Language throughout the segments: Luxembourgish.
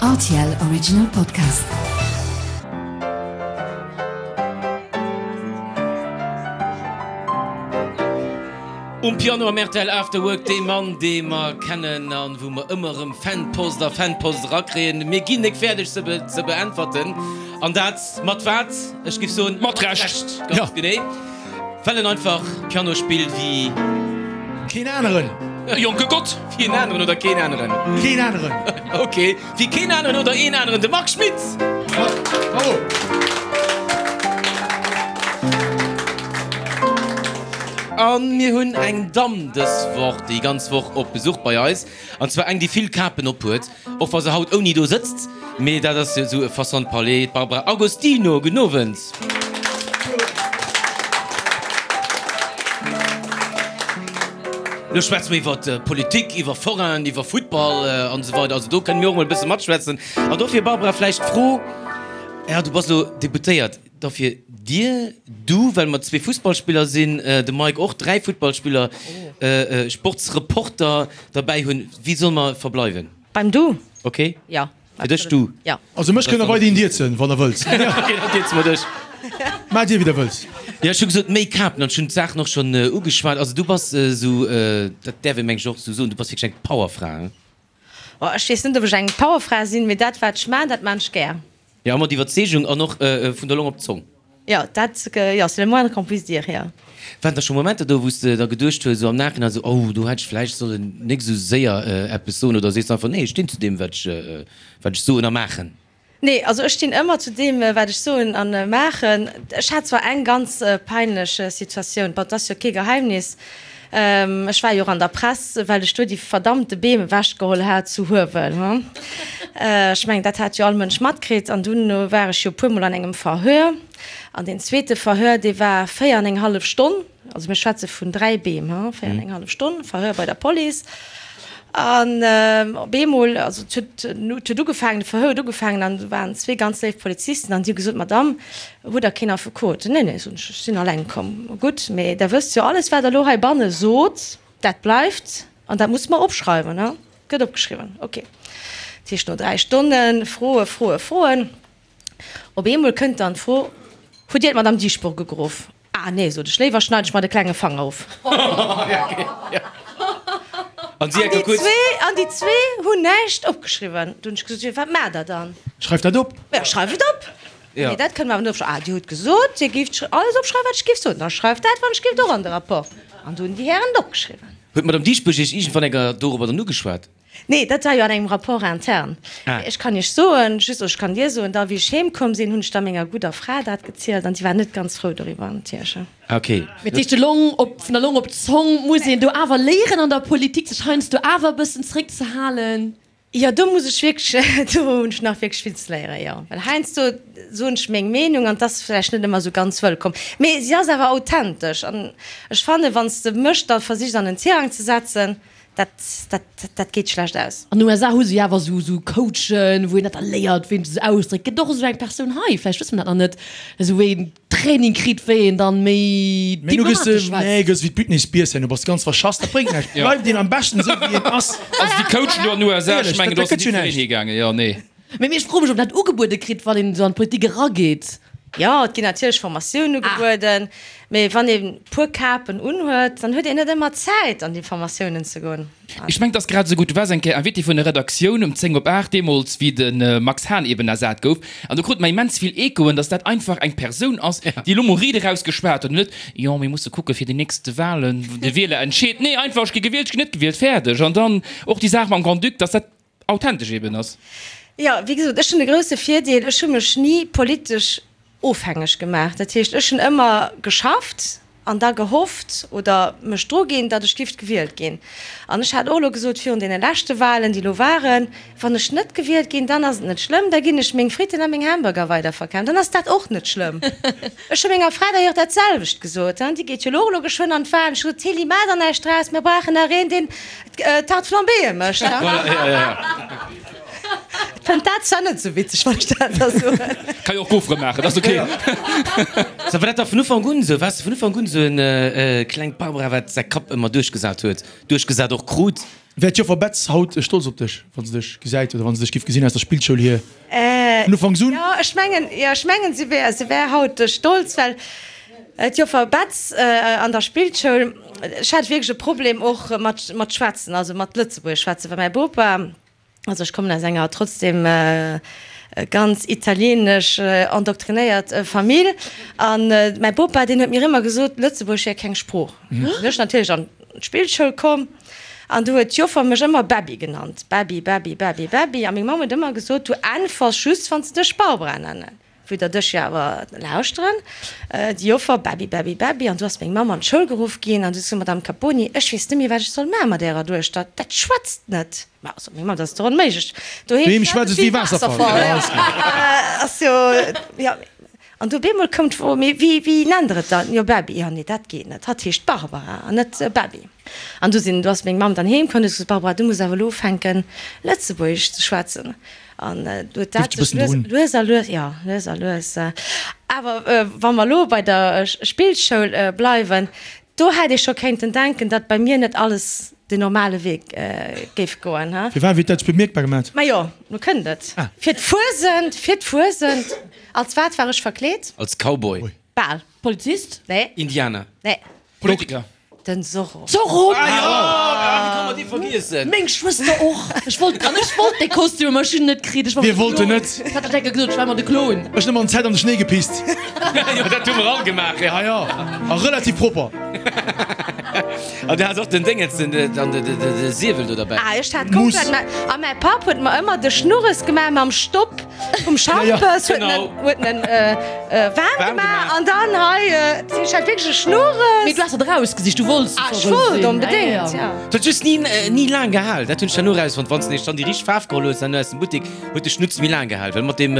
Rtl Original Podcast. Um Piano am rtl After Work dee Mann, dee mer kennen an wou mer ëmmer erëm Fanpost a Fanpost erakréien. Mir ginn nek fäerdeg se ze beäntwerten. An dat mat wat? Ech giff soen, Mat Recht! Ganz genee. Well en einfach Piano spillt wéi. Keen aneren! E jonke Gott! Wéi en aneren oder keen aneren? Keen aneren! Ok, wéi keen aneren oder een aneren, de Marc Schmitz! Bravo! A mir hunn eng Damm dës Woch, déi ganz Woch op Besuch bei eis, an zwar eng, déi vill Kapen ophuet. Och wa se haut ouni do sëtzt, mee dat ass jo esou e Façon de parler, d'Barbara Agostino. Gudden Owend. Lo schwätze mer iwwer Politik, iwwer Forainen, iwwer Futtball an esou weider. Also do kënne mir och emol e bësse matschwätzen. An dofir, Barbara, vläicht d'Fro, jo, du bass elo Deputéiert, dofir dir, du, well mer zwee Fussballspiller sinn, de Mike och, dräi Futtballspiller, Sportsreporter derbäi hunn, wéi solle mer verbleiwen? Beim Du? Ok. Jo. Fir dech Du? Jo. Also mech kënnt der weiderhin dierzen, wann der wëllt. Ok, dann dierze mer dech. Maacht dir, wéi der wëllt. Jo, ech hu gesot, méi Kapen, an ech hunn d'Saachen och schonn ugeschwat. Also du bass esou, dat däerf ee meng ech och esou soen, du bass wierklech eng Powerfra, hein? Oh, ech weess net, ob ech eng Powerfra sinn, mee dat, wat ech maan, dat maan ech gär. Jo, mat Iwwerzeegung an och vun der Long op d'Zong. Jo, dat, jo, c'est le moindre qu'on puisse dire, jo. Waren da scho Momenter do, wou s de da geduecht hues, esou am Nachhinein, esou, oh, do hätt ech vläicht sollen nik esou séier eppes soen, oder sees de einfach, nee, ech stinn zu deem, wat ech, wat ech soen a maachen? Nee, also ech stinn ëmmer zu deem, wat ech soen a maachen. Ech hat zwar eng ganz peinlech Situatioun, bon, 't ass jo kee Geheimnis, Ech war jo och an der Press, well ech do déi verdammte Beem ewechgeholl hat zu Huewel. Ech mengen, dat hat jo all Mënsch matkritt. An dunn war ech jo e puermol an engem Verhör. An deen zweete Verhör, dee war 4 an eng hallef Stonn. Also mir schwätze vun 3 Beem, 4 an eng hallef Stonn Verhör bei der Police. An op eemol, also et huet, et huet ugefaangen, de Verhör huet ugefaangen an do waren zwee ganz léif Polizisten an déi hu gesot, Madame, hutt Der keen Affekot? Nee, nee, soen ech, ech sinn alleng komm. Gutt, mee Der wësst jo, alles wat Der elo heibanne sot, dat bleift an dat musse mer opschreiwen, he? Gëtt opgeschriwwen, ok. Dat heescht, no 3 Stonne Froe, Froe, Froen, op eemol kënnt dann d'Fro, Hutt Dir d'Madame Dieschbourg ugeruff? Ah nee, sot ech, léiwer schneid ech mer de klenge Fanger of. An si enker kuerz. An déi zwee hunn näischt opgeschriwwen. Du hunn ech gesot, jo, wat maacht der dann? Schreift dat op. Jo, schreift et op. Nee, dat kënne mer awer net opschreiwen. Ah, Dir hutt gesot, Dir géift alles opschreiwen, wat ech géif soen. Da schreift dat, wann ech géift, och an de Rapport. An du hunn déi Hären et opgeschriwwen. Huet d'Madame Dieschbourg Iech iergendwann enker dorobber dann ugeschwat? Nee, dat war jo an engem Rapport interne. Ah. Ech kann Iech soen, just, oder ech kann dir soen, da wéi ech heem komm sinn, hunn ech da menger gudder Fra dat gezielt an si war net ganz frou doriwwer natierlech. Ah, ok. Mee dat heescht, de Long op, vun der Long op d'Zong muss een do awer léieren an der Politik, sech heiansdo awer e bëssen zréckzehalen. Jo, do muss ech wierklech, do hunn ech nach wierklech vill ze léieren, jo. Well heiansdo soen ech meng Meenung an 't ass vläicht net ëmmer esou ganz wëllkomm. Mee si ass awer authentesch an ech fannen, wann s de mech da versichs an en Tirang ze setzen, Dat, dat, dat geet schlecht aus. An den USA hu se jo awer esou, esou Coachen, wou een dat da léiert, wéi een sech ausdréckt. Gëtt och esou eng Persoun hei? Vläicht wësse mer dat nach net. Esou wéi een Training kritt, wéi een dann méi Mee nu gëss de, diplomatesch schwätzt. nee, gëss wéi d'Britney Spears herno, bass ganz verschass, dat bréngt näischt. Bleift een am beschten esou wéi een ass. Also déi Coachen do an den USA, ech Éierlech, mengen dat, do dat ass gëtt jo net jiddereen näischt. higaangen, jo, nee. Mee ech froe mech, ob een dat ugebuede kritt, wann een esou an d'Politik erageet. Jo, et ginn natierlech Formatiounen ugebueden, mee wann ee puer Kapen unhuet, dann huet een net ëmmer Zäit an déi Formatiounen ze goen. Ech mengen, et ass grad esou gutt. Du waars eng Kéier Invité vun der Redaktioun um 10 op 8, deemools wéi de Max Hahn eben ersat gouf. An do krute mer immens vill Echoen, datt dat einfach eng Persoun ass, déi elo mol riit eraus geschwat huet an net, jo, mir musse kucke fir déi nächste Wahlen, de Wieler entscheet. Nee, einfach, ech gi gewielt, ech ginn net gewielt, fäerdeg. An dann och déi Saach mam Grand-Duc, datt dat authentesch eben ass. Jo, wéi gesot, ech hunn e grousse Virdeel, ech hu mech ni politesch ofhängeg gemaach. Dat heescht, ech hunn ëmmer geschafft an da gehofft oder mech dru ginn, datt ech gift gewielt ginn. An ech hat och elo gesot virun deene leschte Wahlen, déi elo waren, wann ech net gewielt ginn, dann ass et net schlëmm, da ginn ech meng Fritten a meng Hamburger weiderverkafen, dann ass dat och net schlëmm. Ech hu menger Fra d'ailleurs dat selwecht gesot, déi geet jo elo och elo geschwënn an d'Wahlen. Ech hu gesot, Tilly, maach der näischt draus, mir brauchen nach een, deen Tarte flambéeë mécht. Voilà, ja, ja, ja. Fënnt dat. war zwar net sou witzeg, wann ech dat da soen. Kann jo och Gofere maachen, dat ass ok. So, war dat da vun Ufank un esou? Waars de vun Ufank un esou en klengt Barbara, wat säi Kapp ëmmer duerchgesat huet, duerchgesat och krut? Wär d'Joffer Betz haut stolz op dech, wa se dech gesäit oder wa se dech giff gesinn aus der Spillschoul hier vun Ufanks un? Jo, ech mengen, jo, ech mengen, si wär, si wär haut stolz, well d'Joffer Betz an der Spillschoul, ech hat wierklech e Problem och mat, mat schwätzen, also mat Lëtzebuergesch schwätzen, well mäi Bopa, Also ech kommen aus enger trotzdem ganz italienesch endoktrinéiert Famill an mäi Bopa deen huet mir ëmmer gesot, Lëtzebuergesch wär keng Sprooch. Du sinn ech natierlech an d'Spillschoul komm an du huet d'Joffer mech ëmmer Bäbbi genannt, Bäbbi, Bäbbi, Bäbbi, Bäbbi a meng Mamm huet ëmmer gesot, du äntwers just wann se dech Barbara nennen. Wou der dech jo awer lauschteren, déi Joffer, Bäbbi, Bäbbi, Bäbbi, an du ass meng Mamm an d'Schoul geruff ginn an du sot, Madame Caponi, ech weess net méi, wat ech soll maache mat ärer Duechter, dat schwätzt net. Ma, sot meng Mamm, dat ass dach onméiglech, doheem schwätzt et wéi Waasserfall. Ass jo, jo. An du op eemol koum d'Fro, Mee wéi, wéi nennt der et dann? Jo, Bäbbi. Jo, nee, dat geet net, hatt heescht Barbara an net Bäbbi. An du sinn, du ass meng Mamm dann heem komm, huet gesot, Barbara, du muss awer elo ufänken, Lëtzebuergesch ze schwätzen. An du huet dat sech lues, lues a lues, jo, lues a lues. Awer wa mer elo bei der Spillschoul bleiwen, do hätt ee scho kéinten denken, datt bei mir net alles den normale Wee géif goen, he? Firwat? Wéi huet dat sech bemierkbar gemat? Majo, lo kënnt et. Fir d'Fuesent, fir d'Fuesent. Als wat war ech verkleet? Als Cowboy. Bal. Polizist? Nee. Indianer. Nee. Politiker. Den Zorro. Zorro! Ah jo, wéi kann mer dee vergiessen? Meng Schwëster och. Ech wollt, an ech wollt dee Kostüm, mä ech hunn en net kritt. Ech war Wie wollt en net? Ech hat dat enke gesot, ech war ëmmer de Klon. Ech hunn ëmmer an Zäit an de Schnéi gepisst. Jo, dat hu mer all gemaach, jo. Ah jo, a relativ propper. An du has och den Déngens, den, den, de, de, de Siewel do derbäi. Ah, ech hat komplett Muss. mä, a mäi Papp huet mer ëmmer de Schnurres gemaach mam Stopp. Vum Schampes huet en huet en waarm gemaach an dann hei ech hat wierklech e Schnurres. Mee du has dat erausgesicht, du wollts Ah, ech wollt onbedéngt, ja. Et huet just ni ni laang gehal, dat hunn ech herno erausfonnt, wann s de nämlech dann déi richteg Faarf geholl hues herno aus dem Buttek, huet de Schnutz méi laang gehal, well mat deem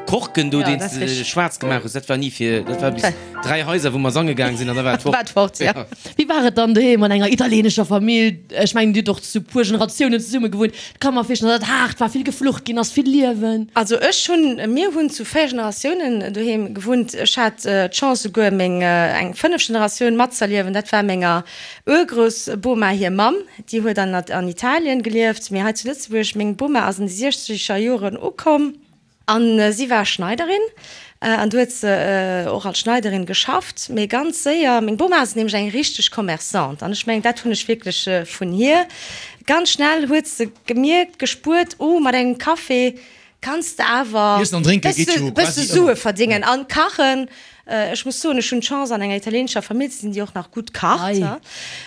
Korken do, deen s de schwaarz gemaach hues, dat war ni fir, dat war bis 3 Haiser wou mer sange gaang sinn an da war et fort. War et fort, ja. Wéi war et dann doheem an enger italienescher Famill? Ech mengen, Dir hutt och zu puer Generatiounen zesumme gewunnt. Et ka mer virstellen, datt et haart war, vill geflucht ginn ass, vill Liewen. Also ech hunn, mir hunn zu 4 Generatiounen doheem gewunnt. Ech hat d'Chance souguer meng eng fënnef Generatioun matzerliewen. Dat war menger Urgroussboma hir Mamm, déi huet an an Italien gelieft, mee hei zu Lëtzebuerg. Meng Boma ass an de siechzeger Joren ukomm. An si war Schneiderin an du huet se och als Schneiderin geschafft, mee ganz séier, meng Boma ass nämlech eng richteg Commerçante an ech mengen dat hunn ech wierklech vun hir, ganz schnell huet se gemierkt, gespuert, oh mat engem Café kanns de awer Iessen an drénke geet jo bësse quasi Sue ëmmer. verdéngen an kachen. Ech muss soen, ech hunn d'Chance an enger italienescher Famill ze sinn, déi och nach gutt kacht.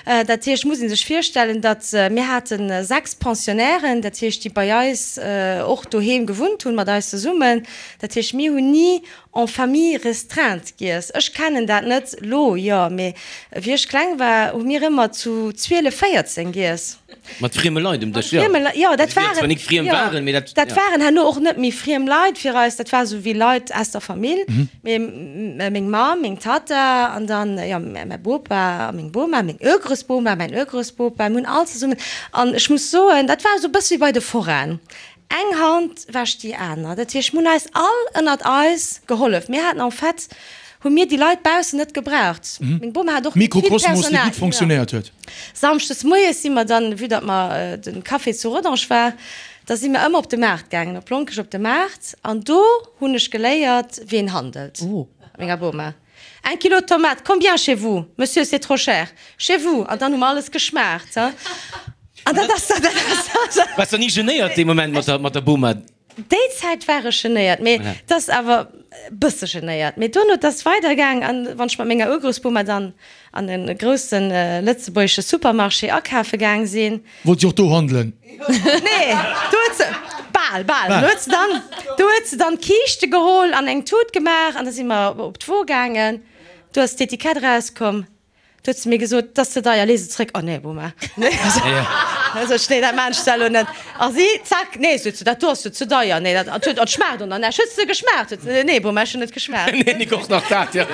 Dat heescht, muss ee sech virstellen, datt mir hate 6 Pensionnairen, dat heescht, déi bei eis och doheem gewunnt hunn, mat eis zesummen. Dat heescht, mir hunn ni en famille restreinte giess. Ech kennen dat net elo, jo, mee wéi ech kleng war, hu mir ëmmer zu 12, 14 giess. Mat frieme Leit um Dësch, jo. Mat frieme Leit, jo, dat Also, déi waren, zwar nik friem jo, waren, mee dat, dat ja. waren herno och net méi friem Leit fir eis, dat war esou wéi Leit aus der Famill, mee meng Mamm, meng Tatta an dann, jo, mäi Bopa a meng Boma, meng Urgroussboma, mäin Urgroussbopa, mir hunn all zesummen, an ech muss soen, dat war esou e bësse wéi bei de Forainen, eng Hand wäscht déi aner, dat heescht, mir hunn eis all ënnert eis gehollef, mir haten en fait, hu mir déi Leit baussen net gebraucht, meng Boma hat och net vill Mikrokosmos, dee Personal, gutt fonctionnéiert huet. Samschdes moies si mer dann, vue datt mer de Café zu Rodange war, da si mer ëmmer op de Maart gaangen, op Lonkech op de Maart, an do hunn ech geléiert, wéi een handelt, mat menger Boma. Un kilo tomate, combien chez vous? Monsieur, c'est trop cher. Chez vous? An dann hu mer alles geschmaacht, he. An dat ass, dat ass. Waars de ni genéiert dee Moment mat der, mat der Boma? Déi Zäit war ech genéiert, mee et ass awer e bësse genéiert. Mee duerno, et ass weidergaang an wann ech mat menger Urgroussboma dann an e grousse lëtzebuergesche Supermarché akafe gaang sinn. Wollt si och do handelen? Nee, do huet se, bal, bal, do huet se dann, do huet se dann d'Kiischte geholl an eng Tut gemaach an da si mer op d'Wo gaangen. Do ass d'Etikett erauskomm. Du huet se mir gesot, 't ass ze deier, lee se zréck. Oh nee, Boma, nee, sot ech, nee, dat maan ech da elo net. A si, zack, nee, sot se, dat do ass jo ze deier, nee, dat huet, dat schmaacht och nach näischt. Huet se geschmaacht? Huet se, nee, Boma, ech hunn net geschmaacht. Nee, nik och nach dat, jo.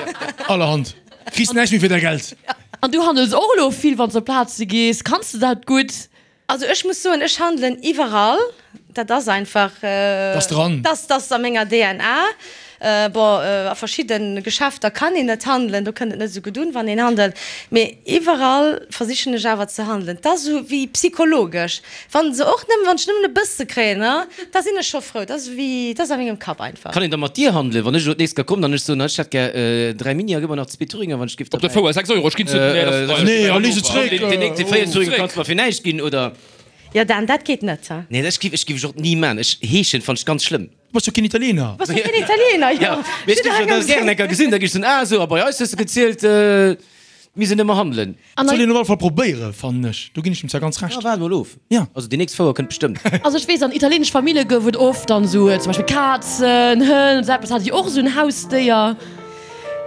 Allerhand, kriss näischt méi fir däi Geld. An du handels och elo vill, wann s de op Plaze gees. Kanns de dat gutt? Also ech muss soen, ech handelen iwwerall. Dat ass einfach. Dat ass dran. Dat ass a menger DNA. Bon, a verschidde Geschäfter kann een net handelen, do kënnt et net esou gutt un, wann een handelt. Mee iwwerall versichen ech awer ze handelen. Et ass esou wéi psychologesch. Wann se och nëmmen, wann ech nëmmen e bësse kréien, da sinn ech scho frou. Dat ass wéi, dat ass a mengem Kapp einfach. Kann een da mat dir handelen, wann ech elo d'nächst Kéier kommen an ech soen, ech hätt gär 3 Mini a gëff mer nach zwee Thüringer, wann ech giff Op der Fouer 6 Euro, ech ginn zu den. Nee, a lee se zréck. Deen 4 Thüringer kanns de mer fir näischt ginn, oder? Jo Dan, dat geet net, he? Nee, dat giff ech giff ech och ni man. Ech heeschen fann ech ganz schlëmm. Du bass jo keen Italiener. Du bass jo keen Italiener, jo. Ja, mee ech giff dat gären eng Kéier gesinn, da giff ech soen, ah sou, a bei eis hues de gezielt, mir sinn ëmmer handelen. Dat soll een op alle Fall probéieren, fannen ech. Do ginn ech dem zwar ganz Recht. Ja, waart mol of. Ja. Also déi nächst Fouer kënnt bestëmmt. Also ech weess, an italienesch Famille gouf et oft dann sou zum Beispill Kazen, Hënn, esou eppes. Hat Dir och esou en Hausdéier?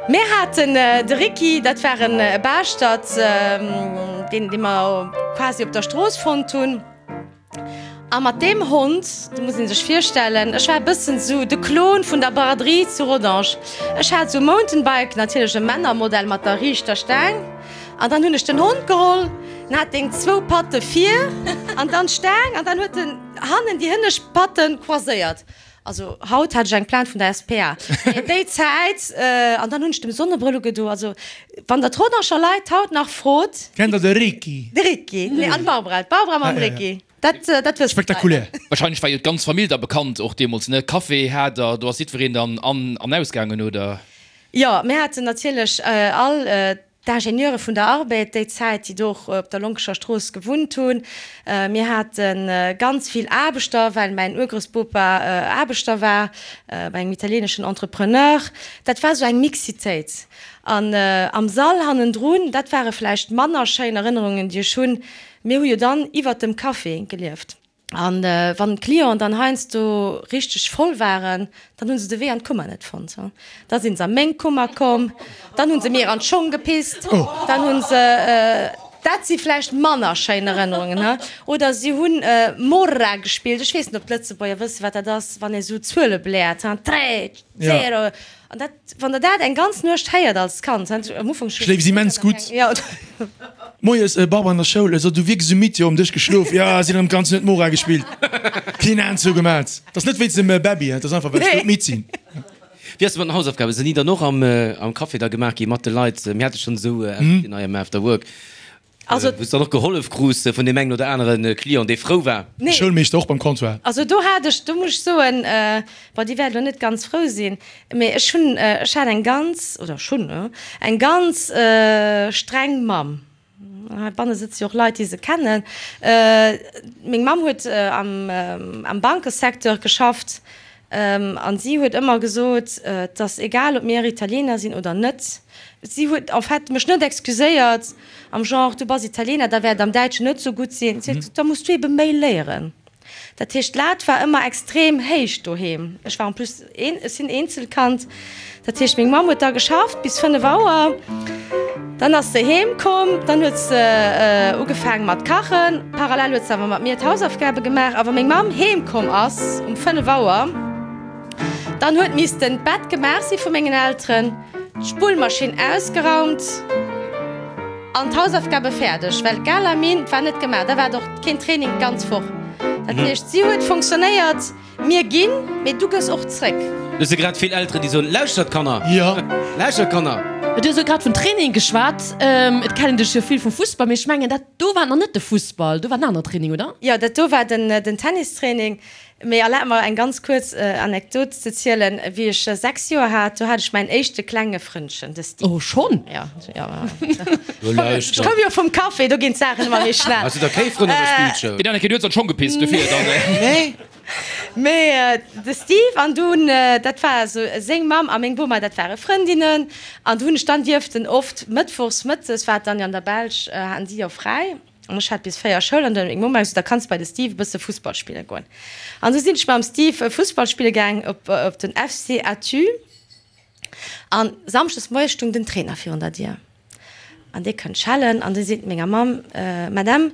Mir haten de Ricky, dat war e Baaschtert, deen dee mer quasi op der Strooss fonnt hunn. A mat deem Hond, do muss ee sech virstellen, ech war e bëssen esou de Klon vun der Braderie zu Rodange. Ech hat esou e Mountainbike, natierlech e Männermodell mat der riichter Staang. An dann hunn ech den Hond geholl, en hat deng zwou Patte vir an dann d'Staang an dann huet en hannen déi hënnescht Patte croiséiert. Also haut hat ech eng Plainte vun der SPA. Mee déi Zäit, an dann hunn ech dem Sonnebrëll ugedo. Also wann der d'Rodanger Leit haut nach frot. Kennt der de Ricky? De Ricky, nee, an d'Barbara, d'Barbara mam Ricky, dat, dat wëssen d'Leit. Spektakulär. Wahrscheinlech war jo d'ganz Famill da bekannt och deemools, ne? Café hat der, do ass jiddwereen dann an an ausgaangen, oder? Jo, mir haten natierlech all D'Ingenieure vun der Arbed déi Zäit, déi do och op der Lonkescher Strooss gewunnt hunn. Mir hate ganz vill Aarbechter, well mäin Urgroussbopa Aarbechter war bei engem italieeneschen Entrepreneur. Dat war esou eng Mixitéit. An am Sall hannendrun, dat ware vläicht manner schéin Erënnerungen, déi ech hunn, mir hu jo dann iwwert dem Café gelieft. An wann d'Clienten dann heiansdo richteg voll waren, dann hu se de Wee an d'Kummer net fonnt. Da sinn se a meng Kummer komm, dann hu se mir an d'Schong gepisst, dann hu se, dat si vläicht manner schéin Erënnerungen, he? Oder si hunn Morra gespillt, ech weess net, ob d'Lëtzebuerger wëssen, wat dat ass, wann ee sou Zuele bläert, he, Tre, zero. An dat, wann der dat eng ganz Nuecht héiert als Kand, am Ufank. Schléifs immens gutt. Jo. Moies, Barbara an der Schoul, So, du wierks esou midd, jo, um Dësch geschlof, jo, sinn erëm d'ganz Nuet Mora gespillt, keen Aen zougemat. Dat ass net wéinst dem Bäbbi, dat ass einfach, well ech doudmidd sinn. Wéi ass et mat den Hausaufgaben? Sinn déi dann och am Café da gemaach gi mat de Leit? Mir hate schonn esou Invitén hei am After Work. Also, Wou s de dann och gehollef krus vun deem engen oder anere Client, dee frou war. Nee. Schoulmeeschter och beim Comptoir. Also do hat ech, do muss ech soen, bon, déi wäert elo net ganz frou sinn, mee ech hunn, ech hat eng ganz, oder ech hunn eng ganz streng Mamm. Heibanne sëtze jo och Leit, déi se kennen. Meng Mamm huet am, am Bankesecteur geschafft an si huet ëmmer gesot, et ass egal, ob mir Italiener sinn oder net. Si huet en fait mech net excuséiert am Genre, du bass Italiener, da wäert am Däitschen net sou gutt sinn. Si huet gesot, da muss du ebe méi léieren. Dat heescht, d'Lat war ëmmer extrem héich doheem. Ech war en plus een, ech sinn Eenzelkand. Dat heescht, meng Mamm huet da geschafft bis 5 Auer. Dann ass se heem komm, dann huet se ugefaange mat kachen. Parallel huet se awer mat mir d'Hausaufgabe gemaach. A wa meng Mamm heem komm ass um 5 Auer, dann huet missten d'Bett gemaach si vu mengen Elteren, d'Spullmaschinn ausgeraumt an d'Hausaufgabe fäerdeg, well d'Galamine war net gemaach. Da war et och keen Training d'ganz Woch. Dat heescht, si huet fonctionnéiert. Mir ginn, mee du gëss och zréck. Do si grad vill Elteren, déi soen, Lauschtert Kanner! Jo. Lauschtert Kanner! Du hues elo grad vun Training geschwat. Et kennen dech jo vill vum Fussball, mee ech mengen dat do war nach net de Fussball, do war en anere Training, oder? Jo, dat do war den Tennistraining. Mee erlaabt mer eng ganz kuerz Anekdot ze zielen. Wéi ech 6 Joer hat, do hat ech mäin éischte klenge Frëndchen, de Steve. Oh, schonn? Jo, jo. Ech koum jo vum Café, do ginn d'Saachen ëmmer méi schnell. Has du da kee Frënn an der Spillschoul? Deen Anneke, du hues an d'Schong gepisst, dofir dann. Nee. Mee de Steve an dunn, dat war esou seng Mamm a meng Boma, dat ware Frëndinnen. An do hunn ech dann dierften oft mëttwochs mëttes, war et dann jo an der Belsch, haten si jo fräi. An ech hat bis 4 Schoul an dann huet meng Mamm gesot, da kanns de bei de Steve e bësse Fussball spille goen. An esou sinn ech mam Steve Fussball spille gaang op den FC Athus. An samschdes moies stung den Trainer virun der Dier. An dee kënnt schellen an dee seet menger Mamm, Madame,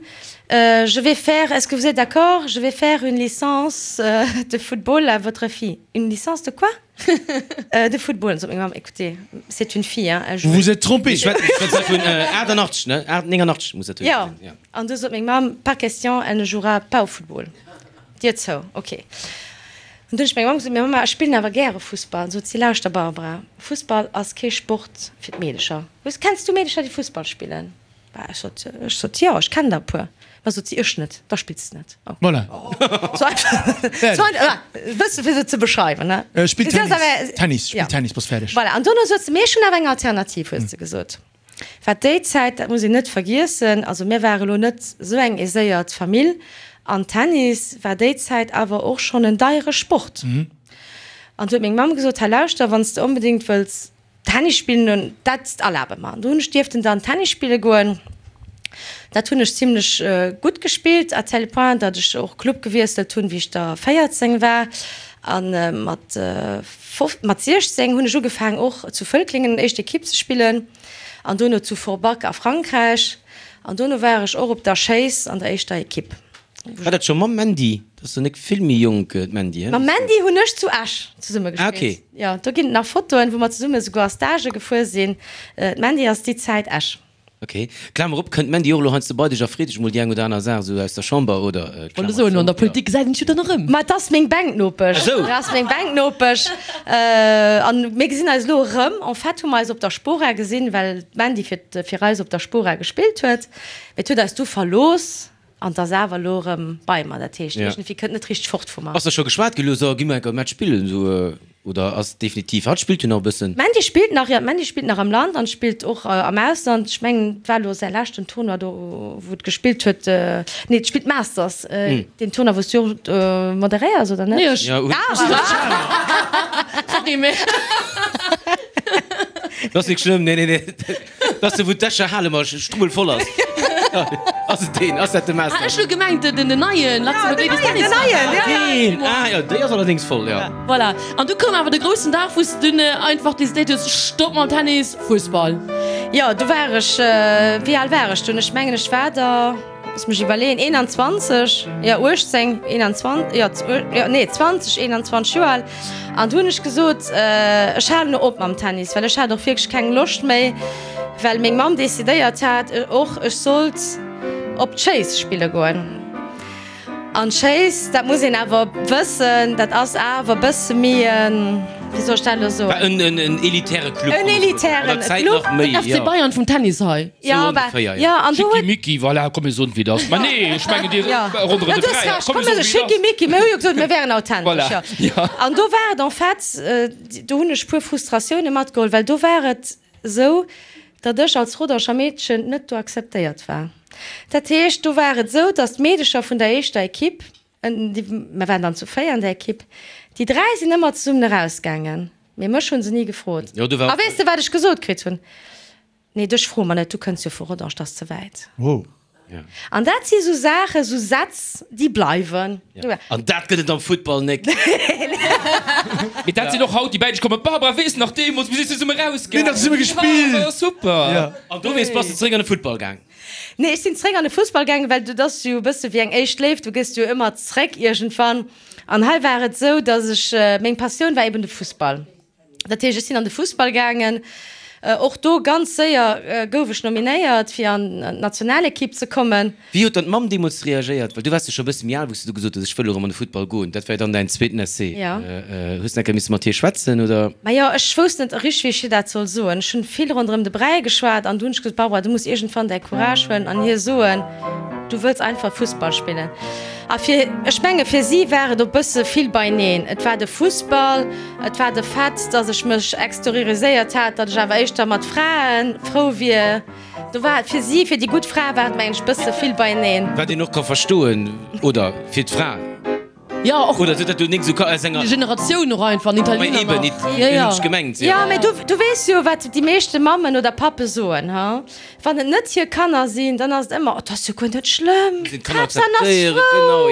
je vais faire, est-ce que vous êtes d'accord, je vais faire une licence de football à votre fille. Une licence de quoi? De football. An sot meng Mamm, écoutez, c'est une fille, hein, elle joue. Vous vous êtes trompée. Ech schwätze vun 88, ne? 89 muss dat Jo. An du sot meng Mamm, pas question, elle ne jouera pas au football. Dier zou, ok. An du hunn ech menger Mamm gesot, Mee Mamma, ech spillen awer gäre Fussball. An sot si, Lauschter Barbara, Fussball ass kee Sport fir d'Meedecher. Hues, kenns du Meedecher, déi Fussball spillen? Bah, ech sot, ech sot, jo, ech kennen der e puer. Ma sot si, ech net, da spills de net. Oh. Voilà. Sou einfach, sou einfach, e bësse fir se ze beschreiwen, ne? Spill Tennis, Tennis, spill Tennis, bass fäerdeg. Voilà, an dono sot se, mee ech hunn awer eng Alternativ, huet se gesot. Wat déi Zäit, dat muss een net vergiessen, also mir ware lo net esou eng aiséiert Famill, an Tennis war déi Zäit awer och schonn en deiere Sport. An du huet meng Mamm gesot, Hei lauschter, wann s de onbedéngt wëlls Tennis spillen, dat erlabe mer. An do hunn ech dierften dann Tennis spille goen. Dat hunn ech zimlech gutt gespillt, à tel point, datt ech och Club gewiesselt hunn, wéi ech da 14 war. A mat Mat 16 hunn ech ugefaang och zu Völklingen éischt Equipe ze spillen an dono zu Forbach a Frankräich an dono war ech och op der Schéiss an der éischter Equipe. War dat scho mam Mandy? Dat ass jo nek vill méi jonk, d'Mandy, he? Mam Mandy hunn ech zu Esch zesumme Ah, gespillt. okay. Jo, do ginn et nach Fotoen, wou mer zesumme souguer a Stagë gefuer sinn. D'Mandy ass déi Zäit Esch. Ok, Klamer op, kënnt d'Mandy och elo heiansdo bei dech a freet dech mol déi eng oder aner Saach esou aus der Chamber oder? Wollt elo soen, an der Politik gesäit een sech jo dann erëm. Ma et ass meng Bänknopesch. Ah sou. Et ass meng Bänknopesch. An mir gesinn eis elo erëm. En fait hu mer eis op der Spora gesinn, well d'Mandy fir fir eis op der Spora gespillt huet. Mee et huet eis du verlooss. An 't ass awer elo erëm bei mer, dat heescht, iergendwéi kënnt net richteg fort vu mer. Ass da scho geschwat ginn elo, so gi mer enker e Match spillen, esou, oder ass definitiv, hatt spillt jo nach e bëssen? D'Mandy spillt nach, jo, d'Mandy spillt nach am Land an spillt och am Ausland. Ech mengen, et war elo säi leschten Tournoi do, wou et gespillt huet, nee, et spillt d'Masters, deen Tournoi, wou s du och moderéiers, oder net? Nee, ech. Ja, Ah, Sorry, mee. Dat ass nik schlëmm, nee, nee, nee. Dat ass de wou d'Escher Hale mat strubbel voll ass. Ass et deen? Ass dat de Master? Ah, ech hu gemengt den den neien Luxembourg Ladies Tennis. Den neien, ja, ja. Deen, ah jo, déi ass allerdéngs voll, jo. Voilà. An du koum awer de groussen Dag, wou s de dunn einfach decidéiert hues, Stopp mam Tennis, Fussball. Jo, du war ech, wéi al war ech dunn? Ech mengen, ech war der. Looss mech iwwerleeën, 21, jo 18, 21, jo, jo nee 20, 21 Joer al. An du hunn ech gesot, ech halen elo op mam Tennis, well ech hat och wierklech keng Loscht méi, well meng Mamm decidéiert hat och, ech sollt op d'Schéiss spille goen. An d'Schéiss, dat muss een awer wëssen, dat ass awer e bësse méi en, wéi soll ech dat elo soen? War en en elitäre Club. En elitären Club. Den FC Bayern vum Tennis hei. Ja, ongeféier, ja. An do huet. Schickimicki, voilà, komm mir soen et wéi et ass. Mä nee, ech mengen dir ronderëm de Bräi. Ja, du hues Recht, komm mir soen Schickimicki, mir hu jo gesot, mir wären authentesch, Voilà, ja. An do war et en fait, do hunn ech puer Frustratioune matgeholl, well do war et esou, datt ech als Rodanger Meedchen net do akzeptéiert war. Dat heescht, do war et esou, datt d'Meedecher vun der éischter Equipe, mir waren dann zu 4 an der Equipe, déi 3 sinn ëmmer zesummen erausgaangen, mee mech hu se ni gefrot. A weess de, wat ech gesot kritt hunn? Nee, dech froe mer net, du kënns jo vu Rodange, dat ass ze wäit. Wow. An dat si sou Saachen, sou Sätz, déi bleiwen. An dat gëtt et am Futtball nek. Mee dat sinn och haut déi bäi dech kommen, Barbara, weess nach deemools, mir sinn zesumme rausgaangen. Mir hunn nach zesumme gespillt. War super. An dowéinst bass de zeréck an de Futtball gaang? Nee, ech sinn zeréck an de Fussball gaangen, well dat ass jo e bësse wéi eng éischt Léift, du gëss jo ëmmer zeréck iergendwann. An hei war et sou, datt ech, meng Passioun war eben de Fussball. Dat heescht, ech sinn an de Fussball gaangen. Och do ganz séier gouf ech nominéiert, fir an d'Nationalekipp ze kommen. Wéi huet dann d'Mamm deemools reagéiert? Well du waars jo scho e bësse méi al, wou s du du gesot hues, ech wëll erëm an de Futtball goen. Dat war jo dann däin zweeten Essai. Jo. Hues de eng Kéier misse mat hir schwätzen, oder? Majo, ech wousst net richteg, wéi ech hir dat soll soen. Ech hunn vill ronderëm de Bräi geschwat an du hunn ech gesot, Barbara, du muss iergendwann däi Courage huelen an hir soen, du wëlls einfach Fussball spillen. A fir, ech menge fir si war et och bësse vill beineen. Et war de Fussball, et war de Fait, datt ech mech exterioriséiert hat, datt ech awer éischter mat Frae frou wier. Do war et fir si, fir déi gutt Fra war et mengen ech bësse vill beineen. Wat een och ka verstoen, oder? Fir d'Fra. Jo, och. Oder sou, datt du nik sou ka aus enger. Generatioun och einfach, an Italiener nach. Ma eben, Jo, jo. hunn ech gemengt, jo. Jo, mä du, du weess jo, wat déi meeschte Mammen oder Pappe soen, ha? Wann et net hir Kanner sinn, dann ass et ëmmer, Oh, 't ass jo guer net schlëmm, d'Haaptsaach ass frou,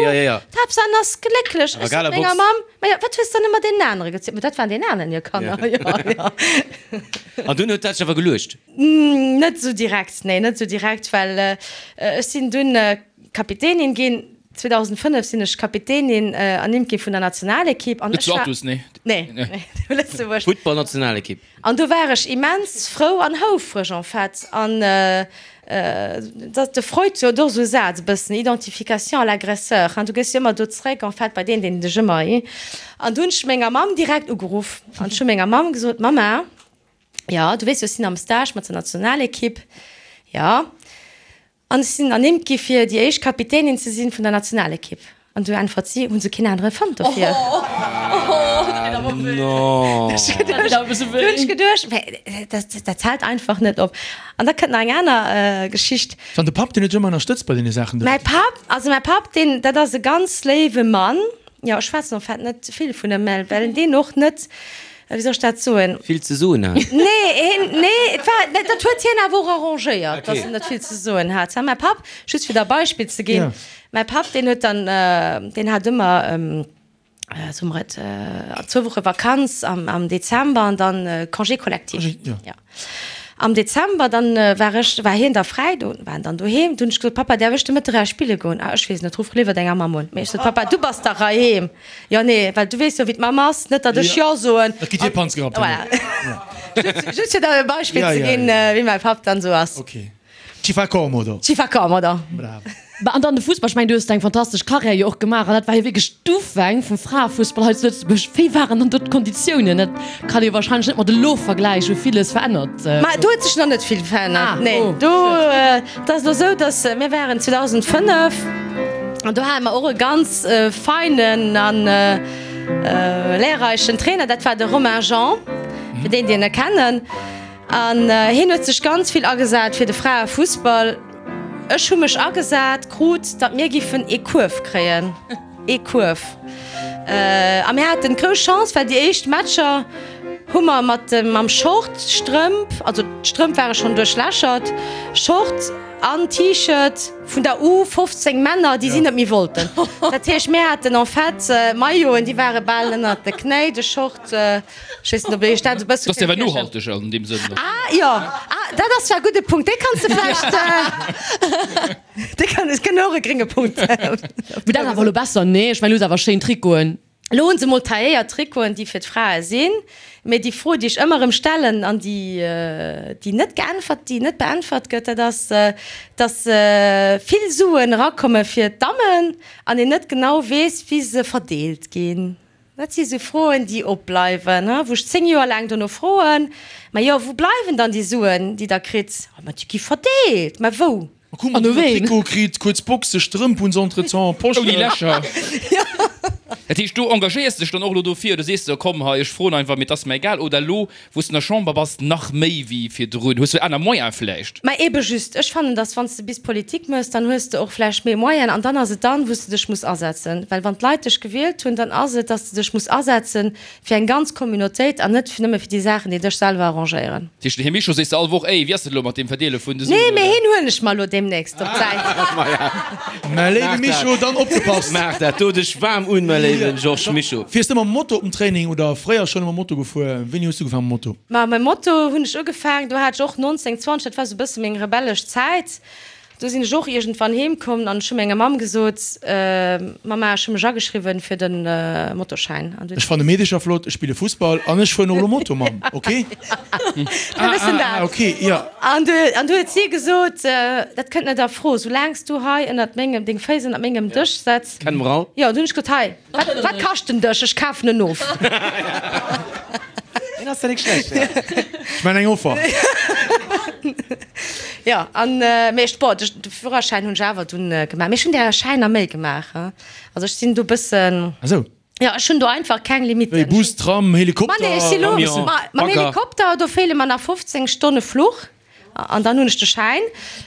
d'Haaptsaach ass glécklech. Ech sot menger Mamm, Majo, wat hues dann ëmmer deenen anere gezielt? Ma dat waren deenen aneren hir Kanner, jo, jo. An dunn huet dat sech awer geluecht? Net esou direkt, nee, net esou direkt, well ech sinn dunn Kapitänin ginn. 2005 sinn ech Kapitänin ernimmt gi vun der Nationalekipp. Net zu Athus, nee? Nee, nee, zu Lëtzebuerg. Futtballnationalekipp. An do war ech immens frou an houfreg en fait. An. De Freud huet och esou e Saz e bëssen, Identification à l'agresseur, hein, du gëss jo ëmmer do zréck en fait bei deen, deen dech ëmmer, hi. An du hunn ech menger Mamm direkt ugeruff an ech hu menger Mamm gesot, Mama, jo, du weess jo, ech sinn am Stage mat der Nationalekipp, jo, an ech sinn ernimmt gi fir déi éischt Kapitänin ze sinn vun der Nationalekipp. An du äntwert si, Hunn se keen anere fonnt dofir? Du hunn ech geduecht, mä dat dat hält einfach net op. An da kënnt nach eng aner Geschicht. An de Papp, deen huet dech ëmmer ënnerstëtzt bei deene Saachen do? Mäi Papp, also mäi Papp, deen, dat ass e ganz léiwe Mann. Jo, ech schwätzen en fait net vill vun em, well well deen och net, wéi soll ech dat soen? Vill ze soen hat. Nee, hien, nee, et war, dat huet hien awer och arrangéiert, datt en net vill ze soen hat. Mäi Papp, just fir der e Beispill ze ginn, Mäi Papp, deen huet dann, deen hat ëmmer, soe mer et, zwou Woche Vakanz am, am Dezember an dann Congé collectif. Jo. Am Dezember dann war ech, war hien da fräi, do war en dann doheem. Du hunn ech gesot, Papa, däerf ech de Mëtteg eraus spille goen? Ah, ech weess net, ruff léiwer denger Mamm un. Mee ech sot, Papa, du bass dach heiheem. Jo, nee, well du weess jo, wéi d'Mamm ass, net datt ech Jo soen. Dat gitt hir Panzgerappt. Voilà. Just, just fir der e Beispill ze ginn, wéi mäi Papp dann esou ass. Okay. Ci fa comodo. Ci fa comodo. Bravo. Bah, an dann de Fussball, ech mengen, du hues deng fantastesch Karriär jo och gemaach an dat war jo wierklech d'Ufäng vum Fraefussball hei zu Lëtzebuerg. Wéi waren dann do d'Konditiounen? Dat kann ee warscheinlech net mat elo vergläichen, wou villes verännert Ma do huet sech nach net vill verännert, Ah, nee. oh, Do, et ass elo esou, datt mir waren 2005 an do hate mer och e ganz feinen an lehrreichen Trainer, dat war de Romain Jean, fir déi, déi en kennen. An hien huet sech ganz vill agesat fir de Fraefussball. Ech hu mech agesat krut, datt mir giffen ee Kuerf kréien. Ee Kuerf. A mir haten d'grouss Chance, well déi éischt Matcher hu mer mat dem, mam Short, Strëmp, also d'Strëmp ware schonn duerchlächert, Short an T-Shirt vun der U 15 Männer, déi si net méi wollten. Dat heescht, mir haten en fait Mailloten, déi ware bal ënnert de Knéi, de Short. Ech weess net, ob Dir Iech dat e bësse Dat ass awer kënnt virstellen. nohalteg an deem Sënn. Ah, jo. Ah, dat ass zwar e gudde Punkt. Dee kanns de vläicht, dee kann, ech kënn och e grénge Punkt. Mee dat ass awer elo besser, nee? Ech mengen, elo hu se awer schéin Trikoten. Elo hu se mol tailléiert Trikoten, déi fir d'Frae sinn. Mee déi Fro, déi ech ëmmer erëm stellen an déi, déi net geäntwert, déi net beäntwert gëtt, dat ass, dass vill Suen erakomme fir d'Dammen an een net genau weess, wéi se verdeelt ginn. Dat si sou Froen, déi opbleiwen, wou ech 10 Joer laang dono froen, Ma jo, wou bleiwen dann déi Suen, déi Der kritt? Ma déi gi verdeelt. Mä wou? An u ween? Trikot kritt, kuerz Boxe, Strëmp hunn se entretemps, Poschen. Ouni Lächer. Dat heescht, du engagéiers dech dann och elo dofir oder sees de, komm hei, ech froen einfach, mee et ass mer egal? Oder elo, Wou s de an der Chamber bass, nach méi wéi virdrun? Hues du aner Moyen vläicht? Mä ebe just, ech fannen, dass wann s de bis Politik méchs, dann hues de och vläicht méi Moyen an dann ass et dann, wou s de dech muss asetzen. Well wann d'Leit dech gewielt hunn, dann ass et, dass de dech muss asetze fir eng ganz Communautéit an net nëmme fir déi Saachen, déi dech selwer arrangéieren. Dat heescht, den Här Mischo sees de all Woch, Ey, wéi ass dat elo mat deem Verdeele vun de Suen? Nee, mee hien huelen ech mer elo deemnächst op d'Säit. Mä léiwe Mischo, dann opgepasst! Maach dat do dech waarm un, mäi léiwe Georges Mischo. Fiers de mam Moto op den Training oder fréier schonn ëmmer Moto gefuer? Wéini hues du ugefaangen mam Moto? Ma mam Moto hunn ech ugefaangen, do hat ech och 19, 20, dat war sou e bësse meng rebellesch Zäit. Do sinn ech och iergendwann heem komm an ech hu menger Mamm gesot, Mama, ech hu mech ageschriwwen fir de Motoschäin. An du. Ech fanne Meedecher flott, ech spille Fussball an ech fueren och elo Moto, Mamm, ok? E bëssen dat. Ah, ok, jo. An du, an du huet si gesot, Dat kënnt net a Fro, soulaang s du hei ënnert mengem, deng Féiss ënnert mengem Dësch setz. Kenne mer all. Jo, du hunn ech gesot, Hei, Wat, wat kascht den Dësch? Ech kafen en of. Deen ass ja nik schlecht, ja. Ech man eng Offer. Jo, an, mee ech, bon, de Führerschäin hunn ech awer dunn gemaach. Mee ech hunn där Schäiner méi gemaach, he. Also ech sinn do bëssen. Ah sou. Jo, ech hunn do einfach keng Limitten. Wéi Bus, Tram, Helikopter? Ma nee, ech si lo, Camion, mam Bagger. Helikopter, do feele mer nach 15 Stonne Fluch. An dann hunn ech de Schäin.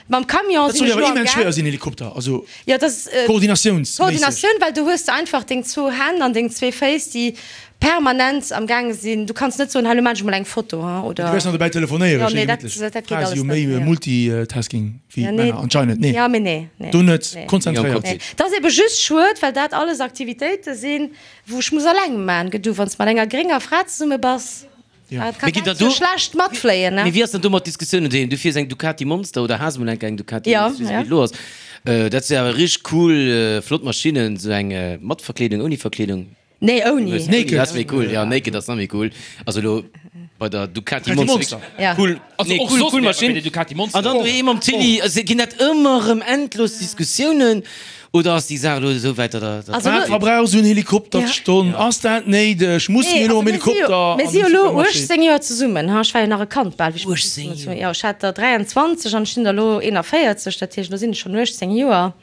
Mam Camion Dat sinn soll ech jo awer elo am immens schwéier Gaang. sinn, Helikopter, also Jo, dat ass koordinatiounsméisseg. Koordinatioun, well du hues de einfach deng zwou Hänn an deng zwee Féiss, déi permanent am gaange sinn. Du kanns net soen, hei, elo maan ech mol eng Foto, hein, Du oder. wäers nach dobäi telefonéieren, Jo, schéi nee, dat, gemittlech. dat geet Frae si alles jo net, méi nee. Multitasking wéi Ja, nee. d'Männer anscheinend, nee. Ja, mee nee, nee. Do net, Nee. konzentréiert. Nee. Dat ass ebe just schued, well dat alles Aktivitéite sinn, wou ech muss alleng maan. Gëtt du, wann s de mat enger grénger Fra zesumme bass. Ja. Mee ginn der do schlecht matfléien, ne? Mee wéi ass dann do mat Diskussiounen doheem? Du fiers eng Ducati Monster oder has mol eng eng Ducati Ja, Monster, ja. wéi et elo ass. Dat si awer richteg cool, flott Maschinnen, sou eng mat Verkleedung, ouni Verkleedung? Nee, ouni. Naked. Dat ass méi cool, ja, naked ass nach méi cool. Also elo. Bei der Ducati Monster. Ja. Cool, Also nee, och cool, soss cool wär bei Maschinn. der Ducati Monster. An dann doheem mam Tilly, also ginn dat ëmmer erëm endlos Diskussiounen oder ass déi Saach elo esou wäit, datt der, datt Also Wat lo- verbrauch esou en Helikopter Ja. d'Stonn? Ass dat néideg? Musse Nee, mir elo also am mir si jo, Helikopter mir an si jo den elo Supermarché? 18 Joer zesummen, ha, ech war jo nach e Kand bal, wéi ech 18 mat 18 Jo, ech hat der 23 an ech sinn der elo 41, dat heescht, elo sinn ech schonn 18 Joer.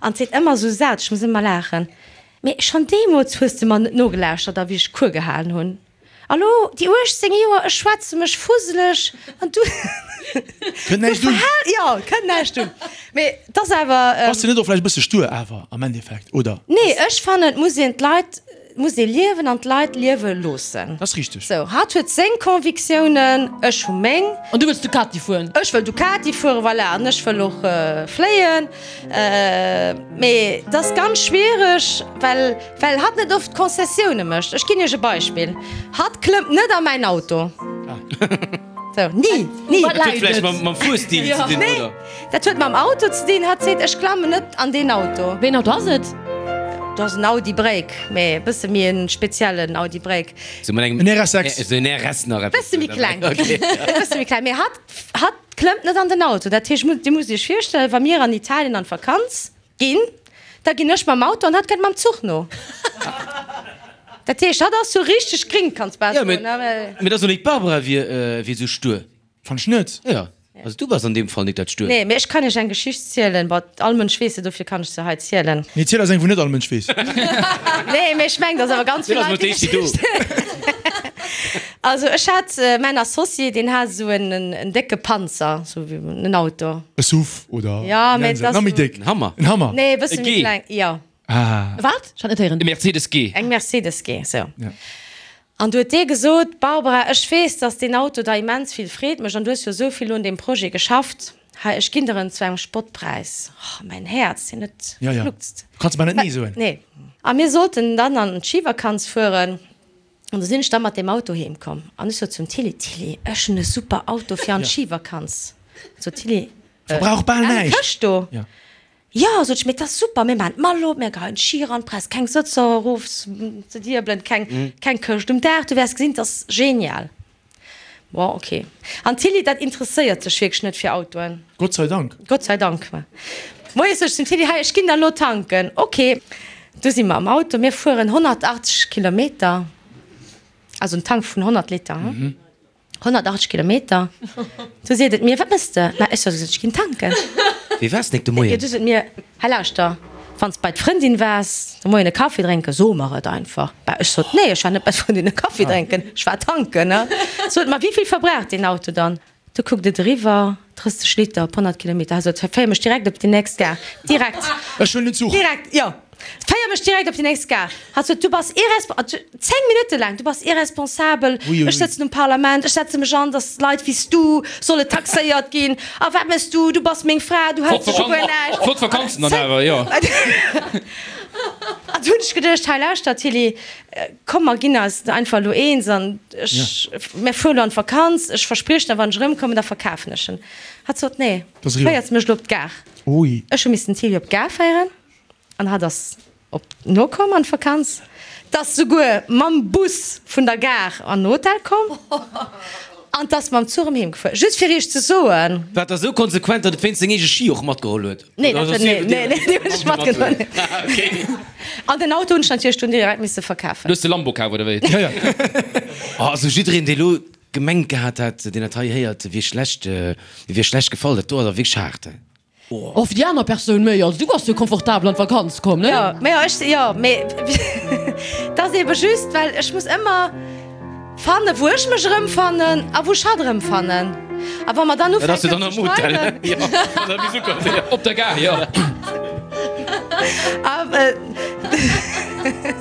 An et seet ëmmer esou Sätz, ech muss ëmmer laachen, Mee schonn deemools hues de mer net nogelauschtert a wéi ech Cours gehalen hunn. A lo, déi 18 Joer, ech schwätze mech fuseleg an du. Kënnt näischt un. Jo, kënnt näischt un. Mee 't ass awer. Bass de net och vläicht e bësse stur awer am Endeffekt, oder? Nee, ech fannen, et muss een d'Leit, et muss ee liewen an d'Leit liewe loossen. Dat ass richteg. Sou, hatt huet seng Convictiounen, ech hu meng. An du wëlls Ducati fueren? Ech wëll Ducati fueren, voilà, an ech wëll och fléien. Mee 't ass ganz schwiereg, well. Well hatt net oft Concessioune mécht. Ech ginn Iech e Beispill, Hatt klëmmt net a mäin Auto. Sou, ni, ni. Dat huet vläicht mam Fuerstil ze dinn, oder? Nee, dat huet mam Auto ze dinn. Hatt seet, ech klammen net an deen Auto. Wéi en Auto ass et? Dat ass en Audi Break, mee e bësse méi e speziellen Audi Break. Sou mat engem. En RS6. Sou en RS nach eppes. Bësse méi kleng. Okay. E bësse méi kleng. Mee hatt, hatt klëmmt net an den Auto. Dat heescht, Dir musst Iech virstellen, wa mir an Italien an d'Vakanz Ginn, da ginn ech mam Auto an hatt kënnt mam Zuch no. Dat heescht, hatt ass sou richteg gring, kanns bal Jo, soen. mee mee dat ass och nik d'Barbara wier wier sou stur. Fann ech net. Jo, also du bass an deem Fall nik dat Stuert. Nee, mee ech kann iech eng Geschicht zielen, bon, all Mënsch weess se, dofir kann ech se hei zielen. Nee, ziel eis eng, wou net all Mënsch weess. Nee, mee ech mengen, dass awer ganz vill Deen ass Leit mol déi d'éischt do. Geschicht. Also ech hat mäin Associé, deen hat esou en en décke Panzer, sou wéi en Auto. E Suv oder Ja, mee et ass nach méi déck? En Hammer. En Hammer. Nee, e bësse E méi G. kleng, jo. Ah. Wat? Ech hat net héieren. E Mercedes G. Eng Mercedes G, sou. Ja. An du huet dee gesot, Barbara, ech weess, dass deen Auto der immens vill Freed mécht an du hues jo esou vill un deem Projet geschafft. Hei, ech ginn der en zu engem Spottpräis. Oh, mäin Häerz, deen huet Ja, ja. gefluckst. Du kanns mer net nee soen. Nee. A mir sollten dann an d'Schivakanz fueren. An du sinn ech da mat deem Auto heem komm an ech sot zum Tilly, Tilly, ech hunn e super Auto fir an d'Schivakanz. Sot d'Tilly, Verbrauch bal Eng näischt. Këscht do? Ja. Jo, sot ech, mee 't ass super, mir maachen d'Mall op, mir geheien d'Schi eran, brauchs keng Sëtzer erof ze diebelen, keng, keng Këscht um Daach, du wäers gesinn, 't ass genial. Bon, ok. An d'Tilly, dat interesséiert sech wierklech net fir Autoen. Gott sei Dank. Gott sei Dank. Moies sot ech zum Tilly, hei, ech ginn da lo tanken. Ok. Du si mer am Auto, mir fueren 180 Kilometer, also en Tank vun 100 Liter, hm? 180 Kilometer. Du seet et mir, wat mëss de? Ma ech sot, ech ginn tanken. Wéi waars nik de Moien? Du sot mir, hei lauschter, wann s bei d'Frëndin waars de Moien e Kaffi drénken, so mer et einfach. Bah, ech sot, nee, ech war net bei d'Frëndin e Kaffi drénken, ech war tanken. Sot mer, wéi vill verbraucht deen Auto dann? Du kuckt et eriwwer, 30 Liter op 100 Kilometer. Hei sot, féier mech direkt op déi nächst Gare. Direkt. Ech huelen den Zuch. Direkt, jo. Féier mech direkt op déi nächst Gare. Hatt sot, du bass irresp-, 10 Minutte laang, du bass irresponsabel, Ui, ui, ech ui. sëtzen um Parlament, ech setze mech an, datt Leit wéi s du solle taxéiert ginn. A wat méchs du? Du bass meng Fra, du häls dech u guer näischt. Flott Vakanzen dann awer, jo. An du hunn ech geduecht, hei lauschter Tilly, Komm mer ginn eis einfach elo eens an ech, mir fueren elo an d'Vakanz, ech verspriech der, wann ech erëmkommen, da verkafen ech en. Hatt sot, Nee, féiers mech elo op d'Gare. Ech hu missen d'Tilly op d'Gare féieren an hatt ass op nokomm an d'Vakanz. 't ass souguer mam Bus vun der Gare an den Hotel komm an 't ass mam Zuch erëm heem gefuer. Just fir iech ze soen. War da sou konsequent, datt et wéinst seng eege Ski och matgeholl huet? Nee, dat huet, nee, nee, nee, deen hunn ech matgeholl. An den Auto hunn ech natierlech dunn direkt misse verkafen. Du hues de Lambo kaf, oder wéi? Ja, ja. Oh, also jiddereen, dee lo gemengt gehat hat, deen dat hei héiert, wier schlecht, wier schlecht gefall. Dat do ass awer wierklech haart. Oh, fir déi aner Persoun méi. Also du bass jo komfortabel an d'Vakanz komm, ne? Jo, mä jo, ech, jo, mee 't ass ebe just, well ech muss ëmmer Fannen, wou ech mech erëmfannen a wou ech hatt erëmfannen. A wa mer dann ufänken ze streiden. Op der Gare, jo.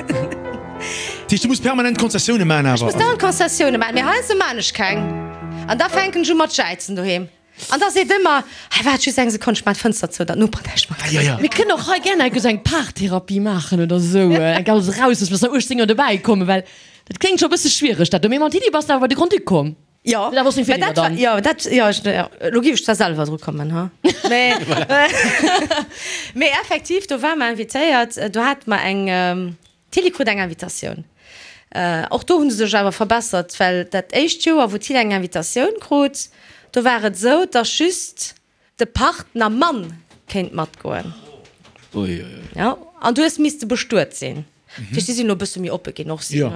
Dat heescht, du muss permanent Konzessioune maachen awer? Ech muss dauernd Konzessioune maachen, mee heiansdo maan ech keng. An da fänken ech u mat jäizen doheem. An da seet ëmmer, Hei, waart just eng Sekonn, ech maan d'Fënster zou, datt d'Noperen näischt matkréien. Mir kënnen och hei gär eng eng Paartherapie maachen oder esou, eng alles eraus, dass mer 18 Joer dobäi kommen, well dat kléngt scho e bësse schwiereg dat do. Mee mam Tilly bass de awer bei de Grand-Duc komm. Jo, Dat ass seng mä Feeler dat war, dann. jo, dat, jo, ech, jo, elo géif ech zwar selwer dru kommen, ha, mee, mee effektiv, do ware mer invitéiert, do hate mer eng, d'Tilly krut eng Invitatioun. Och do hu se sech awer verbessert, well dat éischt Joer, wou d'Tilly eng Invitatioun krut, do war et esou, dass just de Partner Mann kéint matgoen. Jo, an du hues misste bestuet sinn. Dat heescht, si sinn elo e bësse méi oppe ginn och. Jo.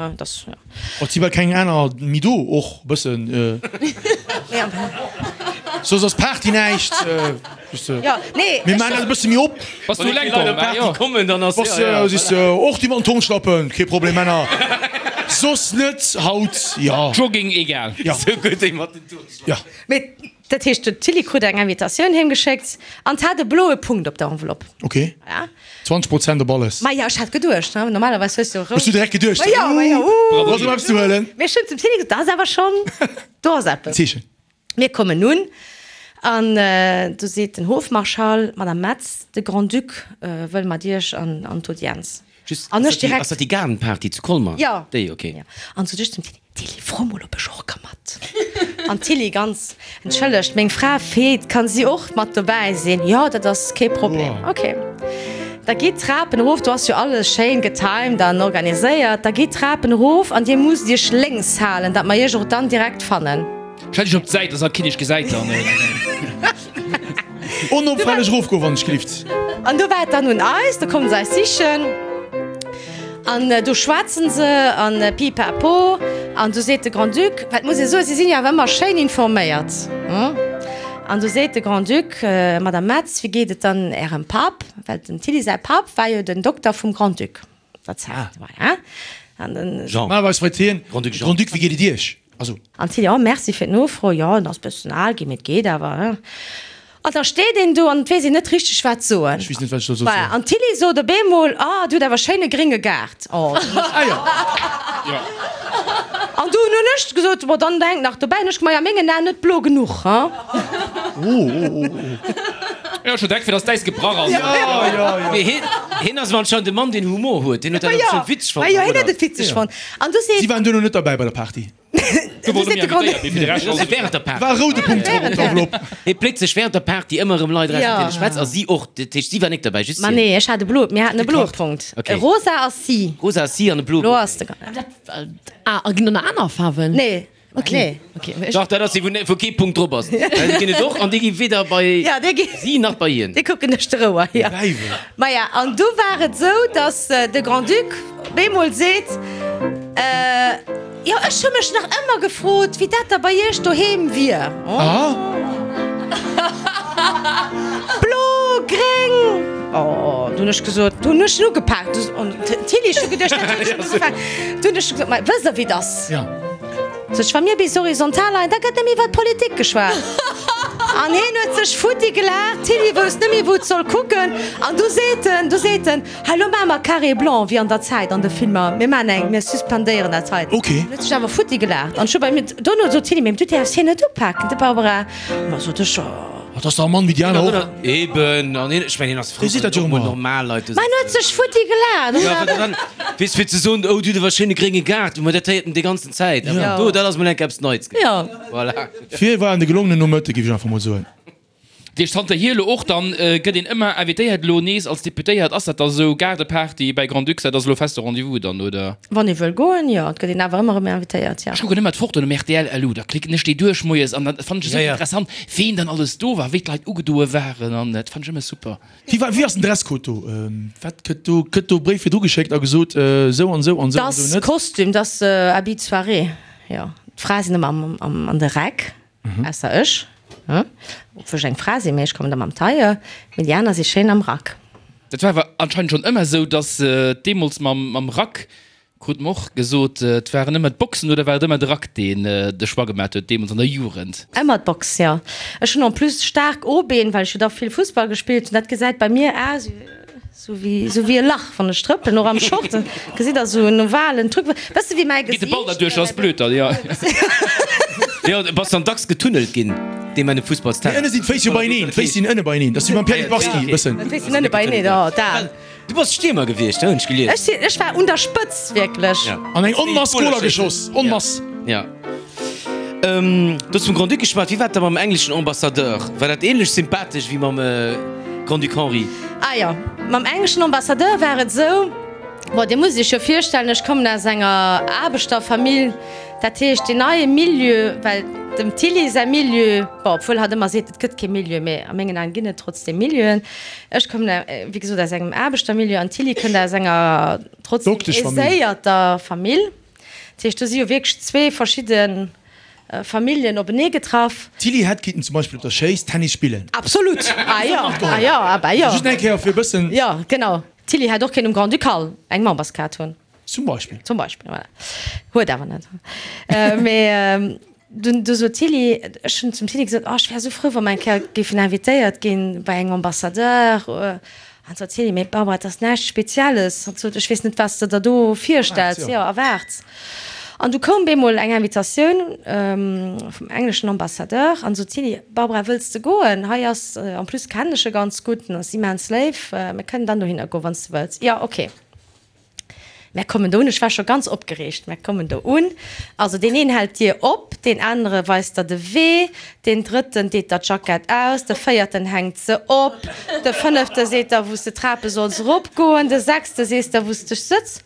Et si bal keng aner méi do, och e bëssen. Soss ass Party näischt. Jo, nee. Mir maachen dat e bësse méi op. Bass du eleng komm? Ah jo. Kommen, dann ass. Bass siehst du, och déi mat den Turnschlappen, kee Problem, Männer. Soss net haut, jo. Jogging, egal. Jo. Sou gutt, déi mat den Turnschlappen. Jo. Mee dat heescht, den Tilly krut eng Invitatioun heem geschéckt an 't hat e bloe Punkt op der Enveloppe. Ok. Ja. 20 Prozent op alles. Maja, ech hat geduecht, ne, normalerweis hues du rout. Hues du direkt geduecht, Ma jo, ma jo, uh, do ass erëm eppes ze huelen. Mee ech hunn zum Tilly gesot, dat ass awer schonn, do ass eppes. Zeechen. Mir kommen un an do seet den Hofmarschall, Madame Metz, de Grand-Duc wëll mat Iech an d'Audienz. Just, An ass ech dat déi, direkt. ass dat déi Gaardenparty zu Colmer? Jo. Déi, ok. Jo. An sot ech zum Tilly, Tilly, fro mol, ob ech och ka mat. An d'Tilly ganz, Entschëllegt, meng Fra feelt, kann si och mat dobäi sinn? Jo, dat ass kee Problem. Ok. Da gitt d'Trapen erof, do ass jo alles schéin getimed an organiséiert. Da gitt d'Trapen erof an dir musst iech lénks halen, datt mer iech och dann direkt fannen. Stell dech op d'Säit, dass alt keen iech gesäit dann. Onopfälleg erofgoen, wann ech gelift. An do war et dann un eis, do kommen se eis sichen an do schwätzen se an pipapo an du seet de Grand-Duc, well et muss ee soen, si sinn jo awer ëmmer schéin informéiert, an du seet de Grand-Duc, Madame Metz, wéi geet et dann Ärem Papp, well dem Tilly säi Papp war jo den Dokter vum Grand-Duc der Zäit, voilà. An den. Jean. Normalerweis freet hien, Grand-Duc Jean. Grand-Duc, wéi geet et Iech? Also. An d'Tilly, Oh, merci fir d'Nofro, jo, en ass bëssen al ginn, mee et geet awer, hein. An da steet een do an et weess een net richteg wat soen. Ech weess net, wat ech soll soen. Voilà, an d'Tilly sot op eemol, Oh, du hutt awer schéine grénge Gaart. Oh. Ah jo. Jo. An dunn hunn ech gesot, Bon, dann hänkt nach dobäi, hunn ech gemaach, jo, a mengen Aen net blo genuch, hein. Oh, oh, oh, oh. Jo, scho direkt fir dass d'Äis gebrach ass. Jo, jo, jo. Mee hien, hien ass awer anscheinend e Mann, deen Humor huet. Deen huet dat Ma och jo, schonn witzeg fonnt, ma jo, hien oder? huet et witzeg fonnt. An du seet. Si waren duerno net derbäi bei der Party. Du Du seet de Grand. Während der Party. War e roude Punkt drop op der Enveloppe. Hie pléckt sech während der Party ëmmer erëm Leit eraus, mat Ja. deene schwätzt, a si och. Dat heescht, si war nik derbäi, just Ma hien. nee, ech hat e blo, mir haten e bloe Punkt. Okay. E rosa ass si. Rosa ass si an e bloe Blo Punkt. ass de. Ah, a ginn do nach aner Faarwen? Nee. Okay. Nee. Okay, ech. Dach, dat ass déi, wou, wou kee Punkt drop ass. Well déi ginn et och, an déi gi weder bei Ja, déi gi. si nach bei hien. Déi kucken ech de Rouer, ja. Däiwel. Maja, an du war et esou, dass de Grand-Duc op eemol seet, Jo, ech hu mech nach ëmmer gefrot, wéi dat da bei Iech doheem wier. Ah. Blo, gréng. Oh, du hunn ech gesot, du hunn ech en ugepaakt. An d'Tilly, ech hu geduecht, dat huet ech ugefaangen. Du hunn ech gesot, Ma wësst Der, wéi 't ass? Ja. Sot ech, wa mir bis horizontal leien, da gëtt nëmme iwwer d'Politik geschwat. An hien huet sech futti gelaacht, d'Tilly wousst net méi, wou et soll kucken. An du seet en, du seet en, Hei, lo maache mer Carré blanc, wéi an der Zäit an de Filmer, mir maachen eng, mir suspendéieren dat hei. Ok. Hien huet sech awer futti gelaacht. An ech hu bei mir, dono sot d'Tilly, Mee du däerfs hien net upaken, de Barbara. Ma sot ech, jo. Dat ass dach e Mann wéi déi aner och. Eben, an hien, ech mengen, hien ass frou, Hie seet wann dat jo och mol ëmmer. normal Leit do Ma en huet sech futti gelaacht. Ja, well dann, weess, fir ze soen, oh, du hutt awer e schéine grénge Gaart, ma dat héiert en déi ganzen Zäit. Awer Ja. do, dat ass mol enk eppes Neits gewiescht. Ja. Voilà. Fir war en de gelongenen Nomëtte, géif ech einfach mol soen. Dat heescht zanterhier elo och dann gëtt een ëmmer invitéiert elo nees als Deputéiert. Ass dat da sou Gaardeparty bäi Grand-Duc, dat ass elo feste Rendez-vous dann, oder? Wann ee wëll goen, jo, et gëtt een awer ëmmer erëm invitéiert, jo. Ech kucken ëmmer d'Fotoen um rtl LU, da klicken ech déi duerch moies an dann fannen ech esou interessant ween dann alles do war, wéi d'Leit ugedoe waren an dat fannen ech ëmmer super. Wéi war, wéi ass den Dresscode do? Wat gëtt do, gëtt do Bréif virdru geschéckt a gesot, esou an esou an esou an esou Dass net? Kostüm, dass Habit de soirée, jo. D'Frae sinn ëmmer am, am, an de Räck. Ausser ech, obwuel ech eng Fra sinn, mee ech kommen da mam Tailleur, mee déi aner si schéin am Rack. Dat war awer anscheinend schonn ëmmer esou, dass deemools mam Rack, krut mer och gesot, et waren ëmmer d'Boxen oder war et ëmmer de Rack, deen de Choix gemat huet deemools an der Jugend? Ëmmer d'Box, jo. Ech hunn en plus staark O-Been, well ech jo da vill Fussball gespillt hunn. Dat gesäit bei mir aus Sou wéi, sou wéi e Lach, wann ech trëppelen, och am Short, gesitt der sou en ovalen Truc, bësse wéi mäi Geet de Gesiicht. Ball derduerch, ass blöd dann, jo. Jo, bass dann dacks getunnelt ginn, dee Mann um Mee Fussballsterrain. ënne sinn d'Féiss jo beieneen, d'Féiss sinn ënne beieneen, dat ass wéi beim Pierre Littbarski e bëssen. D'Féiss sinn ënne beieneen, oh dat. Du bass Stiermer gewiescht, hunn ech gelies. Ech sinn, ech war un der Spëtz, wierklech. An eng Onmass Goler geschoss, Onmass. Ja. Du hues vum Grand-Duc geschwat. Wéi war et da mam engleschen Ambassadeur? War dat ähnlech sympathesch wéi mam Grand-Duc Henri? Ah jo, mam engleschen Ambassadeur war et esou. Bon, Dir musst Iech jo virstellen, ech kommen aus enger Aarbechterfamill, dat heescht deen neie Milieu, well dem Tilly säi Milieu, bon, obwuel hatt ëmmer seet, et gëtt kee Milieu, mä a mengen Aen ginn et trotzdeem Milieuen. Ech kommen, wéi gesot, aus engem Aarbechtermilieu an d'Tilly kënnt aus enger trotzdeem aiséierter Famill. Dat heescht, do si jo wierklech zwee verschidde Familljen openee getraff. D'Tilly hätt kinnten zum Beispill op der Schéiss Tennis spillen. Absolut! Ah jo, ah jo, ah bah jo. Just eng Kéier fir e bëssen. Jo, genau. D'Tilly hätt och kéint um Grand-Ducal eng Memberskaart hunn. Zum Beispill. Zum Beispill, voilà. Huet awer net. Mee dunn, du sot d'Tilly, ech hunn zum Tilly gesot, oh ech wär esou frou, wa mer eng Kéier géifen invitéiert ginn bei engem Ambassadeur. An sot d'Tilly, mee Barbara, et ass näischt Spezielles. An sot, ech weess net, wat s de der do virstells, jo, erwaarts. An du koum bemol eng Invitatioun vum engleschen Ambassadeur an sot, Tilly, Barbara, wëlls de goen? Hei ass, en plus kennen ech e ganz gutt, en ass immens léif, mir kënnen dann dohinner goen, wann s de wëlls. Jo, ok. Mär kommen do un, ech war scho ganz opgereegt, mär kommen do un, also deen een hält d'Dier op, deen anere weist der de Wee, deen drëtten deet der d'Jackett aus, de véierten hänkt se op, de fënnefte seet der, wou s de d'Trape solls eropgoen, de sechste sees der, wou s de sëtz.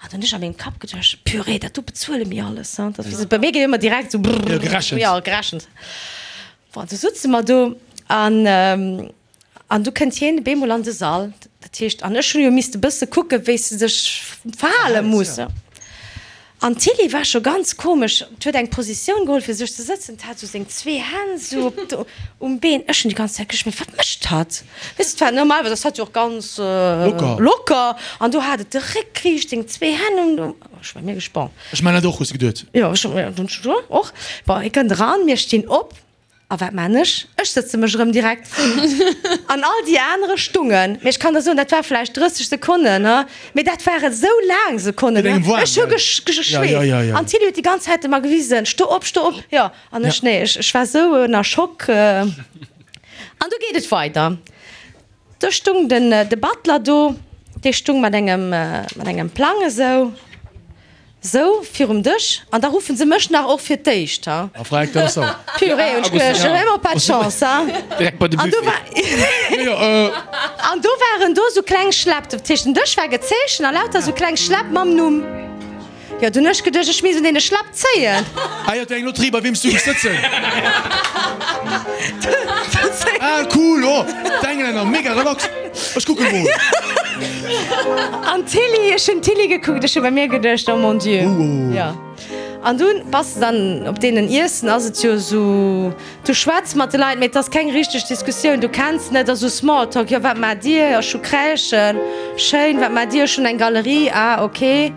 An dann hunn ech a mengem Kapp geduecht, Purée, dat do bezuele mir alles, hein. Dat ass, bei mir geet ëmmer direkt esou brrr, gerechent. Jo, gerechent. Bon, du sutze mer do an, an du kënnt hien bemol an de Sall. Dat heescht, an ech hunn jo misste bësse kucken, wéi s de dech verhale muss. An d'Tilly war scho ganz komesch, d'huet eng Positioun geholl fir sech ze sëtzen, d'hat sou seng zwee Hänn sou op d' um Been. Ech hunn déi ganz Zäit geduecht, mee wat mécht hatt? Weess de, d'war normalerweis ass hatt jo och ganz Locker. locker an do hat et de Réck riicht, seng zwee Hänn um, um, ech war mega bon. Ech man dat och, hues de geduet? Jo, ech hunn och. Bon, hie kënnt eran, mir stinn op. A wat man ech? Ech sëtze mech erëm direkt. An all déi anere stungen. Mee ech kann der soen, dat war vläicht 30 Sekonnen, he, mee dat ware sou laang Sekonnen, he. Ech hu geschweesst. An d'Tilly huet déi ganz Zäit ëmmer gewisen, Sto op, sto op! Jo, an ech, nee, ech war sou ënner Schock. An du geet et weider. Do stung den, de Butler do, dee stung mat engem, mat engem Plang esou. Sou, virum Dësch, an da ruffen se mech nach och fir d'éischt, ha. A Frag, dat ass sauer. Purée, hunn ech geduecht, ech hunn ëmmer pas de chance, ha. Direkt bei de An do Buffet. war, an do waren do sou kleng Schläpp, dat heescht den Dësch war gezeechent a lauter sou kleng Schläpp mam Numm. Jo, dunn hunn ech geduecht, ech misst un deene Schläpp zéien. Ah jo, et wär eng Lotterie, bei weem s du géifs sëtzen. Ah cool, oh, d'Englänner, mega relax. Ech kucke mol. An d'Tilly, ech hunn d'Tilly gekuckt, ech hu bei mir geduecht, oh mon Dieu. Jo. An dunn bass de dann op deenen Iessen, ass et jo esou, du schwätz mat de Leit, mee et ass keng richteg Diskussioun, du kenns net, ass esou Smalltalk, jo wat maacht Dir, ech hu Crèchen, schéin, wat maacht Dir, ech hunn eng Galerie, ah ok.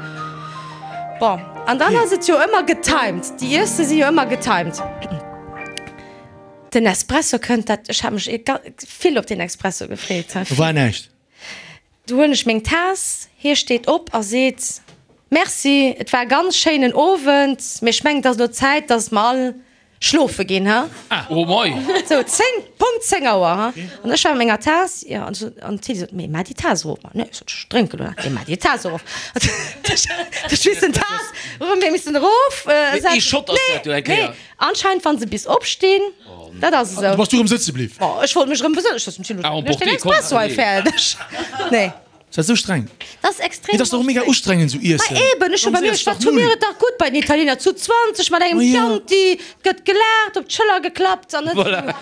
Bon, an dann ass et jo ëmmer getimed, déi Iesse si jo ëmmer getimed. Den Espresso kënnt, dat, ech hat mech vill op deen Espresso gefreet. Do war näischt. Du huelen ech meng Taass, hie steet op a seet, Merci, et war e ganz schéinen Owend, mee ech mengen, et ass elo Zäit, dass mer all schlofe ginn, ha? Oh mei! Sou, 10, Punkt 10 Auer, ha? An ech war mat menger Taass, jo, an sot, an d'Tilly sot, Mee maach déi Taass erof. Ma nee, sot ech, ech drénken elo nach. Nee, maach déi Taass erof. Ech missen d'Taass erëm, mir missen erof Mee ee Shot ass dat jo eng Kéier. Nee, Anscheinend wann se bis opstinn, dat ass esou. Du bass du rëm sëtze bliw? Bon, ech wollt mech rëm besënnen, ech sot zum Thilo, ech den Espresso hei fäerdeg. Nee. Ass dat esou streng? Dat ass extrem. Mee dat ass dach och mega ustrengend esou iessen. Ma eben, ech hu bei mir, ech war, tu mir et dach gutt bei den Italiener zu 20 mat engem Chianti, et gëtt gelaacht, op d'Schëller geklappt an net esou.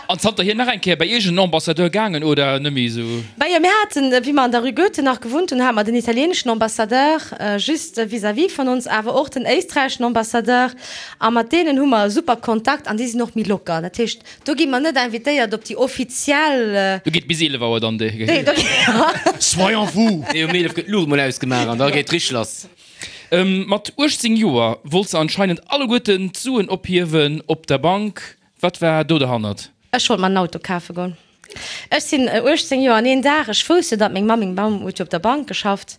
An zanterhier nach eng Kéier bei iergend en Ambassadeur gaangen oder net méi esou? Majo, mir haten, wéi mer an der Rue Goethe nach gewunnt hunn, hate mer den italieeneschen Ambassadeur just vis-à-vis vun ons, awer och den éisträicheschen Ambassadeur. A mat deenen hu mer e super Kontakt an déi sinn och méi locker. Dat heescht, do gi mer net invitéiert op déi offiziell. Do geet bis 11 Auer dann déi. Nee, do geet. Soyons fous! Nee, um 11 gëtt d'Luucht mol ausgemaach an da geet richteg lass. Mat 18 Joer wollt se anscheinend alleguerten d'Suen ophiewen op der Bank. Wat war do derhannert? Ech wollt mer en Auto kafe goen. Ech sinn 18 Joer an een Dag. Ech wousst jo, datt meng Mamm, meng Mamm huet jo op der Bank geschafft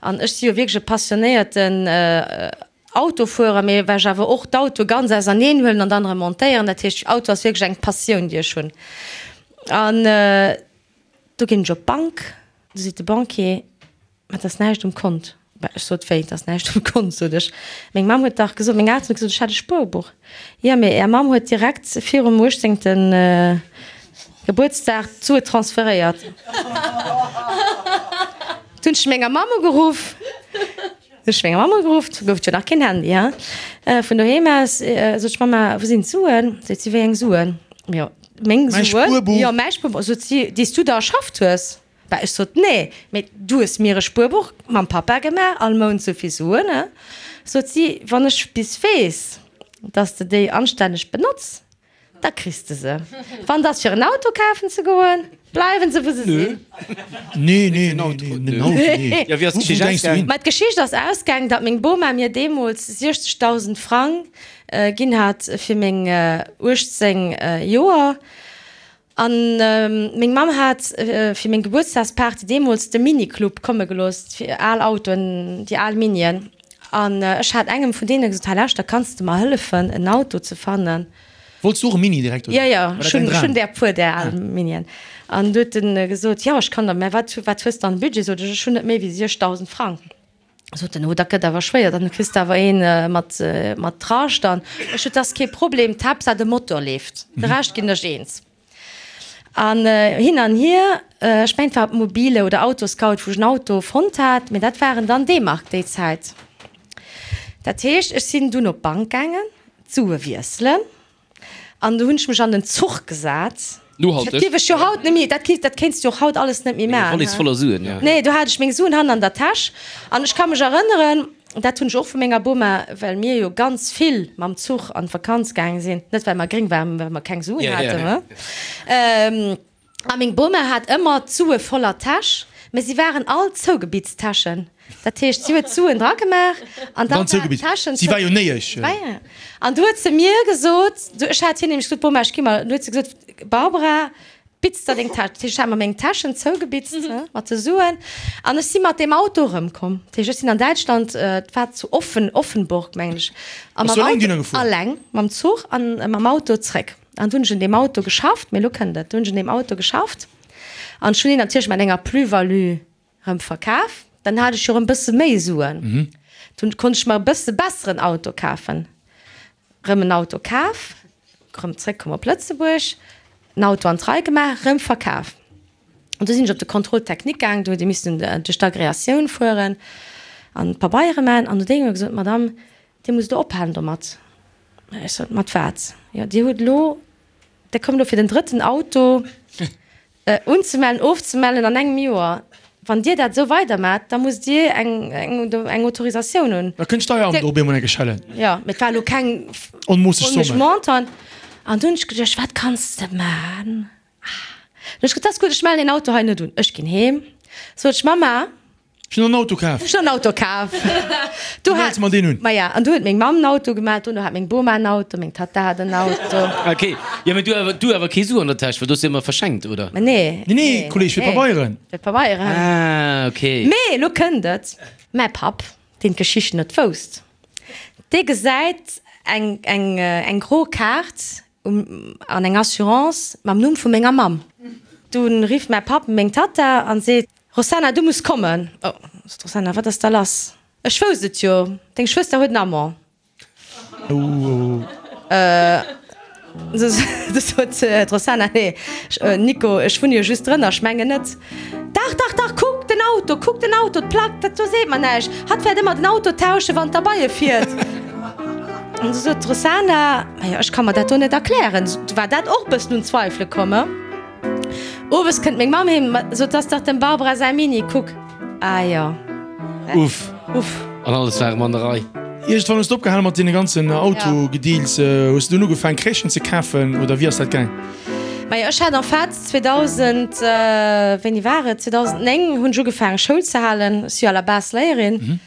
an ech si jo wierklech e passionéierten Autofuerer, mee well ech awer och d'Autoe ganz auserneen huelen an dann erëm montéieren. Dat heescht, Auto ass wierklech eng Passioun, déi ech hunn. An do ginn ech op d'Bank, du seet de Banquier, Mä et ass näischt um Kont. Mä ech sot, Wéi, et ass näischt um Kont? sot ech. Meng Mamm huet dach gesot, meng Elteren hu gesot, ech hätt e Spuerbuch. Jo, mee Är Mamm huet direkt virum uechtzéngte Gebuertsdag d'Sue transferéiert. Du hunn ech menger Mamm ugeruff. Ech menger Mamm ugeruff, du gouf et jo nach keen Handy, hein. Vun doheem aus sot ech, Mama, wou sinn d'Suen? Seet si, wéi eng Suen? Jo, meng Mäi Suen. Spuerbuch. Jo, mäi Spuerbuch. Sot si, déi s du der erschafft hues. Bah, ech sot, nee, mee du hues mir e Spuerbuch mam Papa gemaach, all Mount sou vill Suen, hein. Sot si, wann ech bis weess, dass de déi anstänneg benotz, Da kriss de se. Wann 't ass fir en Auto kafen ze goen, bleiwen se wou se sinn. Nee, nee, nee, nee, en Auto, nee. Jo, wéi ass Wou d'Geschicht denkst du ausgaang? hin? Mä d'Geschicht ass ausgaang, datt meng Boma mir deemools 60.000 Frang ginn hat fir meng 18 Joer. An meng Mamm hat fir meng Gebuertsdagsparty deemools de Mini-Club komme gelooss, fir al Autoen, déi al Minien. An ech hat engem vun deene gesot, Hei lauschter, kanns de mer hëllefen en Auto ze fannen? Wollts du och e Mini direkt, oder? Jo, jo, War dat ech hunn, däin ech hunn Dram? där puer, där al Minien. An du huet en gesot, Jo, ech kann der, mä wat, wat hues de an Budget? Sot ech, Ech hunn net méi wéi 6.000 Frang. Sot en, Oh, dat gëtt awer schwéier, dann kriss de awer een mat, mat Rascht. An ech sot, Dat ass kee Problem, d'Haaptsaach de Motor leeft, de Rescht ginn ech eens. An hin an hier, ech mengen et war op Mobile oder Autoscout, wou ech en Auto fonnt hat, mee dat waren dann D-Mark déi Zäit. Dat heescht, ech sinn dunn op d'Bank gaangen, d'Sue wiesselen an du hunn ech mech an den Zuch gesat. Nohalteg. Dat dierf ech jo haut net méi, dat kéint, dat kéints du och haut alles net méi maachen. Wallis voller Suen, jo. Nee, do hat ech meng Suen hannen an der Täsch an ech ka mech erënneren, Dat hunn ech och vu menger Boma, well mir jo ganz vill mam Zuch an d'Vakanz gaange sinn, net well mer gréng waren, mä well mer keng Suen haten. A meng Boma hat ëmmer d'Sue voller Täsch, mä si waren all zougebitzt Täschen. Dat heescht, si huet d'Suen dragemaach an dann waren d'Täschen Si war jo néiesch. An du huet se mir gesot, ech hat hir nämlech gesot, Boma, ech gi mer, du huet se gesot, Barbara, Bitz der deng Täsch. Dat heescht, ech hat mer meng Täschen zougebitzt mat de Suen an ech si mat deem Auto erëmkomm. Dat heescht, ech sinn an Däitschland, et war zu Offen, Offenburg, mengen ech, a Bass mam du eleng Auto, dunner gefuer? alleng mam Zuch an mam Auto zréck. An du hunn ech un deem Auto geschafft, mee elo kënnt et, du hunn ech un deem Auto geschafft an ech hunn deen natierlech mat enger Plus-value erëm verkaf. Dann hat ech jo erëm bësse méi Suen. Dunn konnt ech mer e bësse besseren Auto kafen. Rëm en Auto kaf, rëm zréckkomm op Lëtzebuerg, en Auto an d'Rei gemaach, rëm verkaf. An du sinn ech op de Contrôle technique gaang, do huet ee missen duerch d'Agréatioun fueren an d'Pabeiere maachen. An du huet ee mir gesot, Madame, Dir musst elo ophalen domat. Ech sot, Mat wat? Jo, Dir hutt elo, Dir kommt elo fir den drëtten Auto Unzemellen, ofzemellen an engem Joer. Wann Dir dat esou weidermaacht, da musst Dir eng, eng Autorisatioun hunn. Da kënnt d'Steueramt och op eemol eng Kéier schellen. Jo, mee et war elo keng Onmoosseg Somme. Montant. An du hunn ech geduecht, wat kanns de maachen? Ah, du hunn ech geduecht, dat ass gutt, ech mellen deen Auto hei net un. Ech ginn heem, sot ech, Mamma, Ech hunn en Auto kaf. Ech hunn en Auto kaf. Du mells mer deen un. Maja, an du huet meng Mamm en Auto gemellt, dono hat meng Boma en Auto, meng Tatta hat en Auto. Ok, jo mee du awer, du awer kee Su an der Täsch, well du hues jo ëmmer verschenkt, oder? Ma nee. Nee, nee, Kolleg, fir d'Pabeieren. Fir d'Pabeieren. Ah, ok. Mee elo kënnt et, mäi Papp, deen d'Geschicht net wousst, dee gesäit eng, eng, eng gro Kaart um, an eng Assurance mam Numm vu menger Mamm. Dunn rifft mäi Papp meng Tatta an seet, Rossana, du muss kommen! Oh, sot d'Rossana, wat ass da lass? Ech wousst et jo, deng Schwëster huet en Amant. Du sot d'Rossana, Nee, Nico, ech wunne jo just drënner, ech mengen net. Dach, dach, dach, kuck den Auto, kuck den Auto, d'Plack, dat do seet mer näischt. Hatt wäert ëmmer den Auto tauschen, wann d'Erbeie fiert. An du sot d'Rossana, Majo, ech ka mer dat do net erklären. Du war dat och e bëssen un Zweifele komm. Owes kënnt meng Mamm heem, sot, 't ass dach dem Barbara säi Mini, kuck. Ah jo. Uff. Uff. An alles war erëm an der Rei. Iergendwann hues de opgehale mat deene ganzen Autogedeals. Hues de dunn ugefaang Crèchen ze kafen oder wéi ass dat gaang? Majo, ech hat en fait 2000, wéini war et, 2009 hunn ech ugefaangen Schoul ze halen. Ech si jo à la base Léierin.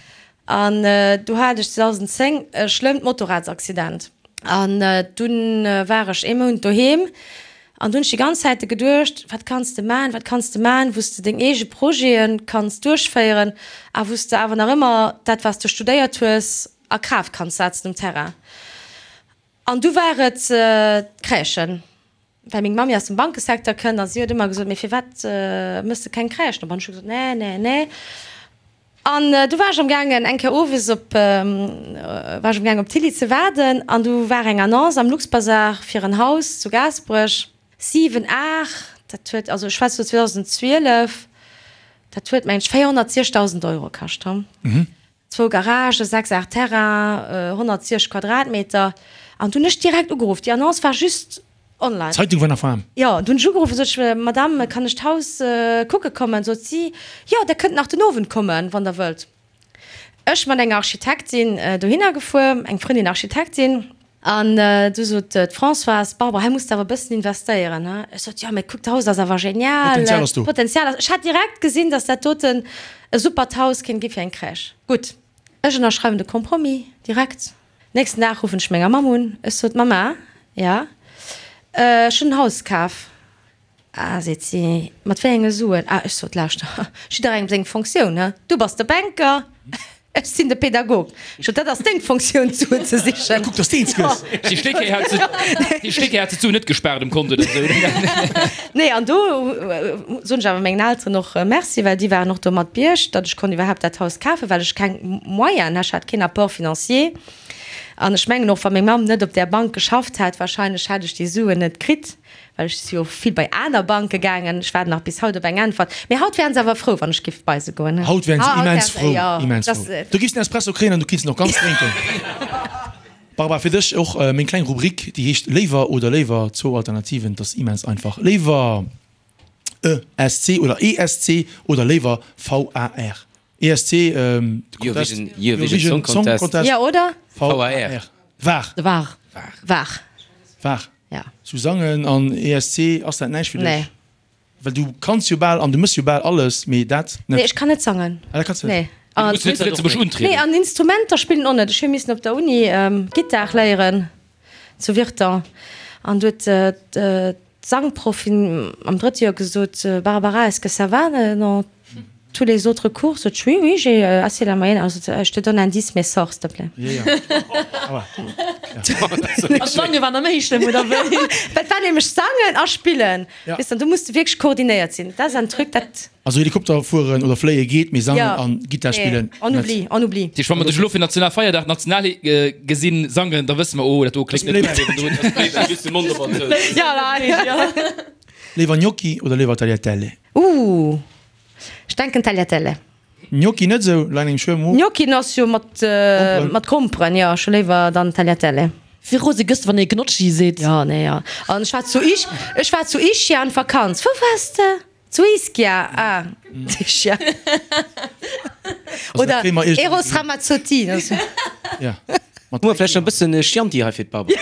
An du hat ech 2010 e schlëmmt Motorradsaccident. An dunn war ech ee Mount doheem an du hunn ech déi ganz Zäite geduecht, wat kanns de man, wat kanns de man, wou s de deng eege Projete kanns duerchféieren a wou s de awer nach ëmmer dat, wat s de studéiert hues, a Kraaft kanns setzen um Terrain. An du war et d'Crèchen. Well meng Mammi aus dem Bankesecteur kënnt a si huet ëmmer gesot, mee firwat mëss de keng Crèchen op? An ech hu gesot, nee, nee, nee. An du war ech am gaangen eng Kéier owes op, war ech am gaangen op d'Tilly ze waarden an du war eng Annonce am Luxbazar fir en Haus zu Gaasperech, 7, 8, dat huet, also ech schwätze lo 2012. Dat huet, mengen ech, 460.000 Euro kascht. Zwou Garagen, 6 Ar Terrain, 160 Quadratmeter. An du hunn ech direkt ugeruff. Déi Annonce war just online. D'Zeitung war nach waarm. Jo, du hunn ech ugeruff, sot ech, Madame, kann ech d'Haus kucke kommen? Sot si, Jo, Der kënnt nach den Owend kommen, wann Der wëllt. Ech mat enger Architektin dohinner gefuer, eng Frëndin Architektin. An du sot d'Françoise, Barbara, hei muss de awer e bëssen investéieren, he? Ech sot, Jo, mee kuck, d'Haus ass awer genial. Potenzial ass do. Potenzial ass. Ech hat direkt gesinn, datt dat doten e supert Haus kéint gi fir eng Crèche. Gutt, ech ënnerschreiwen de Compromis direkt. Nächsten Dag ruffen ech menger Mamm un. Ech sot, Mamma, ja, ech hunn en Haus kaf. Ah, seet si, mat wéi enge Suen? Ah, ech sot, lauschter, jidderengem seng Fonctioun, he? Du bass de Banker, ech sinn de Pädagog. Ech sot, dat ass deng Fonctioun, d'Suen ze sichen. Kuck, dass de eens gëss. Déi Stéckkéi hat se, déi Stéckkéi hat se d'Suen net gespaart um Kont oder esou. Nee, an do soen ech awer mengen Elteren och Merci, well déi waren och do mat bierg, datt ech konnt iwwerhaapt dat Haus kafen, well ech keng Moyenen, ech hat keen Apport financier. An ech mengen och, wa meng Mamm net op där Bank geschafft hätt, wahrscheinlech hätt ech déi Suen net kritt. Well ech si jo vill bei aner Banke gaangen. Ech waarden nach bis haut op eng Äntwert. Mee haut wären se awer frou, wann ech giff bei se goen. Haut wären se immens frou, immens frou. Du giffs en Espresso kréien an du kinns en och ganz drénken. Barbara, fir dech och meng kleng Rubrik, déi heescht Léiwer oder léiwer, zwou Alternativen. Et ass immens einfach. Léiwer ESC oder ESC oder léiwer VAR? ESC, de Contest, Eurovision Song Contest. Jo, oder? VAR. Var. Var. Var. Var. Ja. Sou sangen an ESC, ass dat näischt fir dech? Nee. Well du kanns jo bal an du mëss jo bal alles, mee dat net. Nee, ech kann net sangen. Ah, dat kanns du net? Nee. Du muss net zu Lëtzebuerg untrieden. Nee, an Instrumenter spillen och net. Ech hu missen op der Uni Gittar léieren zu Virton an du huet d'Sangproffin am drëtte Joer gesot, Barbara, est-ce que ça va dans tous les autres cours? Sot ech, oui, oui, j'ai assez la moyenne. Also, je te donne un 10, mais sors, s'il te plaît. An d'Sange war nach méi schlëmm, oder wéi? Dat war nämlech Sangen a Spillen. Ja. Weess de, an do muss de wierklech koordinéiert sinn. Dat ass en Truc, dat. Also Helikopter fueren oder fléie geet, mee sangen Ja. an Gittar Nee, spillen on net. oublie, on oublie. Tisch, wa mer dech elo fir Nationalfeierdag national gesinn sangen, da wësse mer, oh, dat do kléngt net gutt. Just de Mond op an zou. Ja, ja. Léiwer Gnocchi oder léiwer Tagliatelle? Ooh, ech denken Tagliatelle. Gnocchi net esou, leien engem schwéier am Mo. Gnocchi ass jo mat mat Gromperen, jo, ech hu léiwer dann Tagliatelle. Wéi rose gëss de wann ee Gnocchi seet? Jo, nee, jo. An ech war zu Isch, ech war zu Ischia an Vakanz. Wou waars de? Zu Ischia, ah, Ischia. Oder Eros Ramazzotti. Ja. Hu mer vläicht nach e bëssen Chianti hei fir d'Barbara?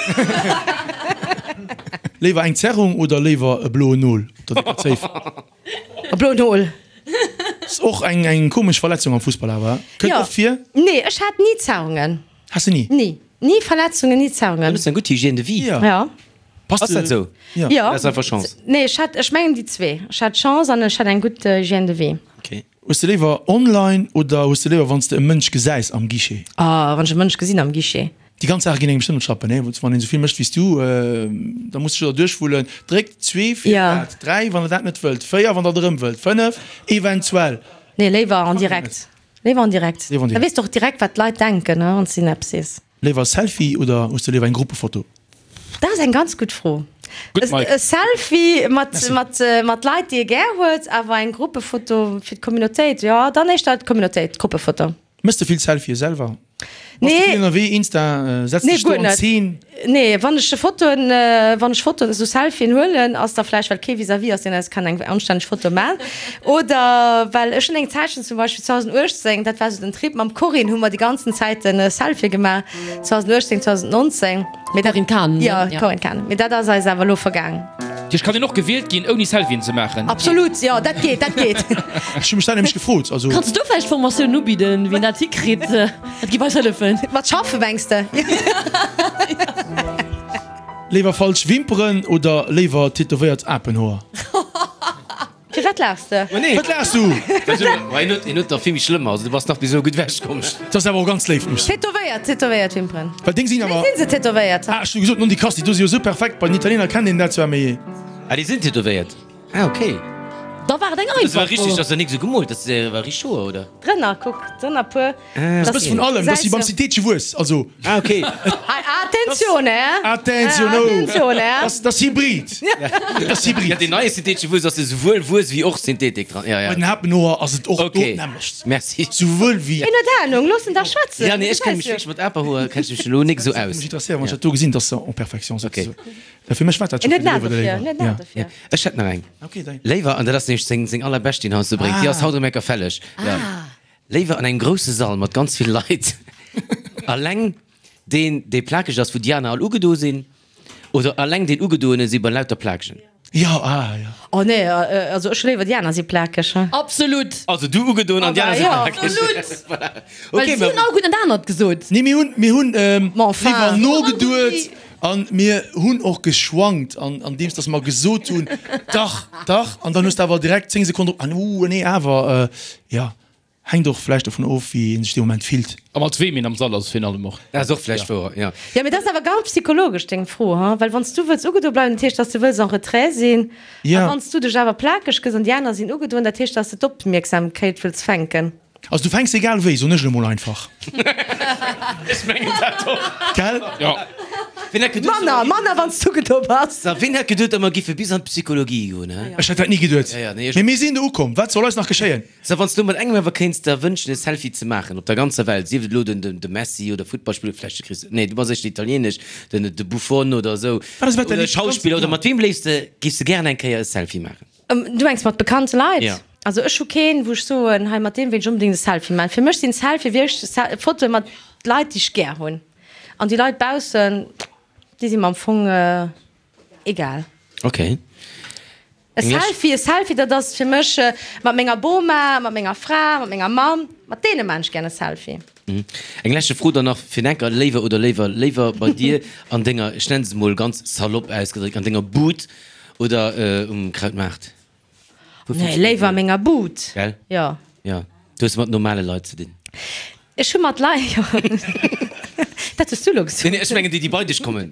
Léiwer eng Zerrung oder léiwer e bloen Nol op der décker Zéif? E bloen Nol. Ass och eng eng komesch Verletzung am Fussball awer, kënnt oft vir. Nee, ech hat ni Zerrungen. Has de ni? Ni. Ni Verletzungen, ni Zerrungen. Dann hues de eng gutt Hygiène de vie. Ja. Ja. Passt Ass dat esou? Ja. Ja. Dat ass einfach Chance. Nee, ech hat, ech mengen déi zwee. Ech hat Chance an ech hat eng gutt Hygiène de vie. Okay. Hues de léiwer online oder hues de léiwer wann s de e Mënsch gesäis am Guichet? Oh, wann ech e Mënsch gesinn am Guichet. Déi ganz Saache ginn engem bestëmmt op d'Schlappen, nee? Wann een esou vill mécht wéi s du, da muss de sech der duerchwullen. Dréckt zwee fir dat, dräi wann der dat net wëllt, véier wann der et erëm wëllt, fënnef eventuell. Nee, léiwer en direct. Léiwer en direct. Da weess de och direkt wat d'Leit denken, wann s de hinnen eppes sees. Léiwer e Selfie oder hues de léiwer eng Gruppefoto? Dat ass eng ganz gutt Fro. Gutt, Mike. E Selfie mat, mat, mat Leit, déi ee gär huet, awer eng Gruppefoto fir d'Communautéit, jo, dann éischter d'Communautéit, d'Gruppefoto. Mëss de vill Selfie selwer? Bass de Nee. vill ënnerwee, Insta, setz Nee, dech do guer an net. Zeen? Nee, wann ech Fotoen, wann ech Fotoen, esou Selfien huelen, ass da vläicht well kee vis-à-vis ass, deen eis kann eng anstänneg Foto man. Oder well ech hunn eng Zäitchen, zum Beispill 2018, dat war esou den Trip, mam Corinne hu mer déi ganzen Zäiten Selfie gemaach, 2018, 2019. Mee dat, Corinne Cahen, ne? Jo, Corinne Cahen. Mee dat ass eis awer elo vergaang. Tisch, kann een och gewielt ginn, ouni Selfien ze maachen? Absolut, jo, dat geet, dat geet. Ech hu mech dat nämlech gefrot, also. Kanns du vläicht Formatioun ubidden, wéi een dat hikritt? Dat géif eis hëllefen. Mat schaffen, mengs de? Léiwer falsch Wimperen oder léiwer tätowéiert Apenhoer? Firwat laachs de? Wat laachs du? Hien huet nach vill méi schlëmmer, also du bass nach bis elo gutt ewech komm. Dat ass awer och ganz léif, muss. Tätowéiert, tätowéiert Wimperen. Well deng sinn awer. Wéi sinn se tätowéiert? Ah, ech hu gesot, non di Kasti, do si jo sou perfekt, bei den Italiener kennt een dat zwar, mee. Ah, déi sinn tätowéiert? Ah, ok. Da war et eng Dat war einfach richteg, Fro. dat ass jo nik sou gemoolt, dat war richteg Hoer, oder? Drënner, kuck, drënner puer. Dat ass e bësse vun allem, dat ass wéi beim Citeetje Wuess, also. Ah, ok. Hei, ah. Attenzione! Attenzione! Attenzione! Dat ass Hybrid. Dat ass Hybrid. Ja, deen neie syntheetesche Wuess ass jo souwuel Wuess wéi och Synthetik dran. Ja, ja. Bei den Hapenhoer ass et och do Okay. d'nämmlecht. Merci. Souwuel wéi. Hien huet Ahnung, looss en dach schwätzen. Ja, nee, ech kenne mech wierklech mat Aperhoer kenne ech mech elo nik esou aus. Mech interesséiert, wann ech dat do gesinn, dass se en perfection sinn. Okay. Ja, fir mech war dat scho En huet fir de en A Léiwer dofir, oder en huet Léiwer. en A Ja. dofir. Ja, ech hätt nach eng. Okay, dei. Léiwer, an dat ass nämlech seng, seng allerbescht, déi en heiansdo bréngt, déi ass haut erëm enker fälleg. Ja. Léiwer an engem grousse Sall mat ganz vill Leit, alleng deen, dee plakeg ass, wou déi aner all ugedo sinn, oder alleng deen Ugedoene si bei lauter Plakegen? Jo, ah, jo. Oh nee, also ech hu léiwer déi aner si plakeg. Absolut! Also du ugedoen an déi aner si plakeg. Absolut! Voilà. Well Okay, si hunn all gutt net anert gesot. Nee, mir hunn, mir hunn Ma enfin. léiwer nogeduet an mir hunn och geschwankt an, andeems dass mer gesot hunn, dach, dach, an dann hues de awer direkt 10 Sekonnen drop, ah, uh, nee, awer, jo. Hänkt och vläicht dovun of, wéi een sech dee Moment fillt. A mat weem een am Sall ass virun allem och. Dat ass och vläicht wouer, jo. Jo, mee dat ass awer ganz psychologesch deng Fro, ha? Well wann s du wëlls ugedo bleiwen, dat heescht, dass du wëlls en retrait sinn. A wann s du dech awer plakeg gëss an déi aner sinn ugedoen, dat heescht, dass de d'Opmierksamkeit wëlls fänken. Also du fänks egal wéi, soen ech elo mol einfach. Ech mengen dat och. Gell? Jo. Wien hätt geduet, Manner, manner wann s du ugedo bass. Sa, wien hätt geduet, datt mer giffe bis an d'Psychologie goen, he? Ech hätt dat ni geduet. Ja, ja, nee, ech. Mee mir sinn do ukomm. Wat soll eis nach geschéien? Sou, wann s du mat engem awer kéints der wënschen e Selfie ze maachen op der ganzer Welt, sief et elo den de Messi oder Futtballspiller, vläicht de Chris, nee du bass éischter italieenesch, den de Buffon oder esou, Wat ass wat oder däi e Schauspiller, oder mat weem léifs de, giffs de gären eng Kéier e Selfie maachen? Du mengs mat bekannte Leit? Jo. Also ech hu keen, wou ech soen, hei mat deem wéilt ech onbedéngt e Selfie maachen. Fir mech sinn Selfie wierklech Fotoe mat Leit déi ech gär hunn, an déi Leit baussen, déi si mer am Fong egal. Ok. E Selfie, e Selfie, dat ass fir mech mat menger Boma, mat menger Fra, mat menger Mamm, mat deene maan ech gär e Selfie. Eng leschte Fro dann nach fir den Enker, Léiwer oder léiwer, léiwer bei dir an denger, ech nennen se mol ganz salopp ausgedréckt, an denger Bud oder um Krautmaart? Wou Nee, léiwer a menger Bud. Gell? Jo. Jo. Du hues mat normale Leit ze dinn. Ech hu mat Leit, jo. Dat hues du elo gesot. Nee, nee, ech mengen déi, déi bei dech kommen.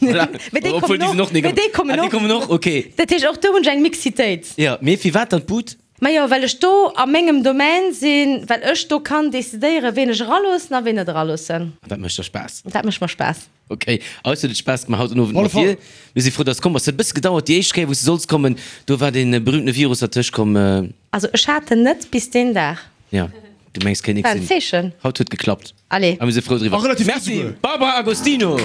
Voilà. Mee déi Obwuel, kommen déi sinn och. och Mee déi kommen Ah, déi och. kommen och, okay. Dat heescht, och do hunn ech eng Mixitéit. Jo, mee firwat dann d'Bud? Majo, well ech do a mengem Domaine sinn, well ech do kann decidéieren, ween ech eraloossen a ween net eraloossen. An dat mécht der Spaass? Dat mécht mer Spaass. Ok, eis huet et Spaass gemaach haut den Owend mat dir. Mir si frou, dass de komm bass. Et huet e bësse gedauert, déi éischt Kéier, wou s de solls kommen, do war dee berühmtene Virus dertëscht komm. Also ech hat en net bis deen Dag. Jo, du mengs kéint nix War en sinn. Zeechen. Haut huet geklappt Allez. a mir si frou driwwer. A relativ gutt Merci souguer. Barbara Agostino.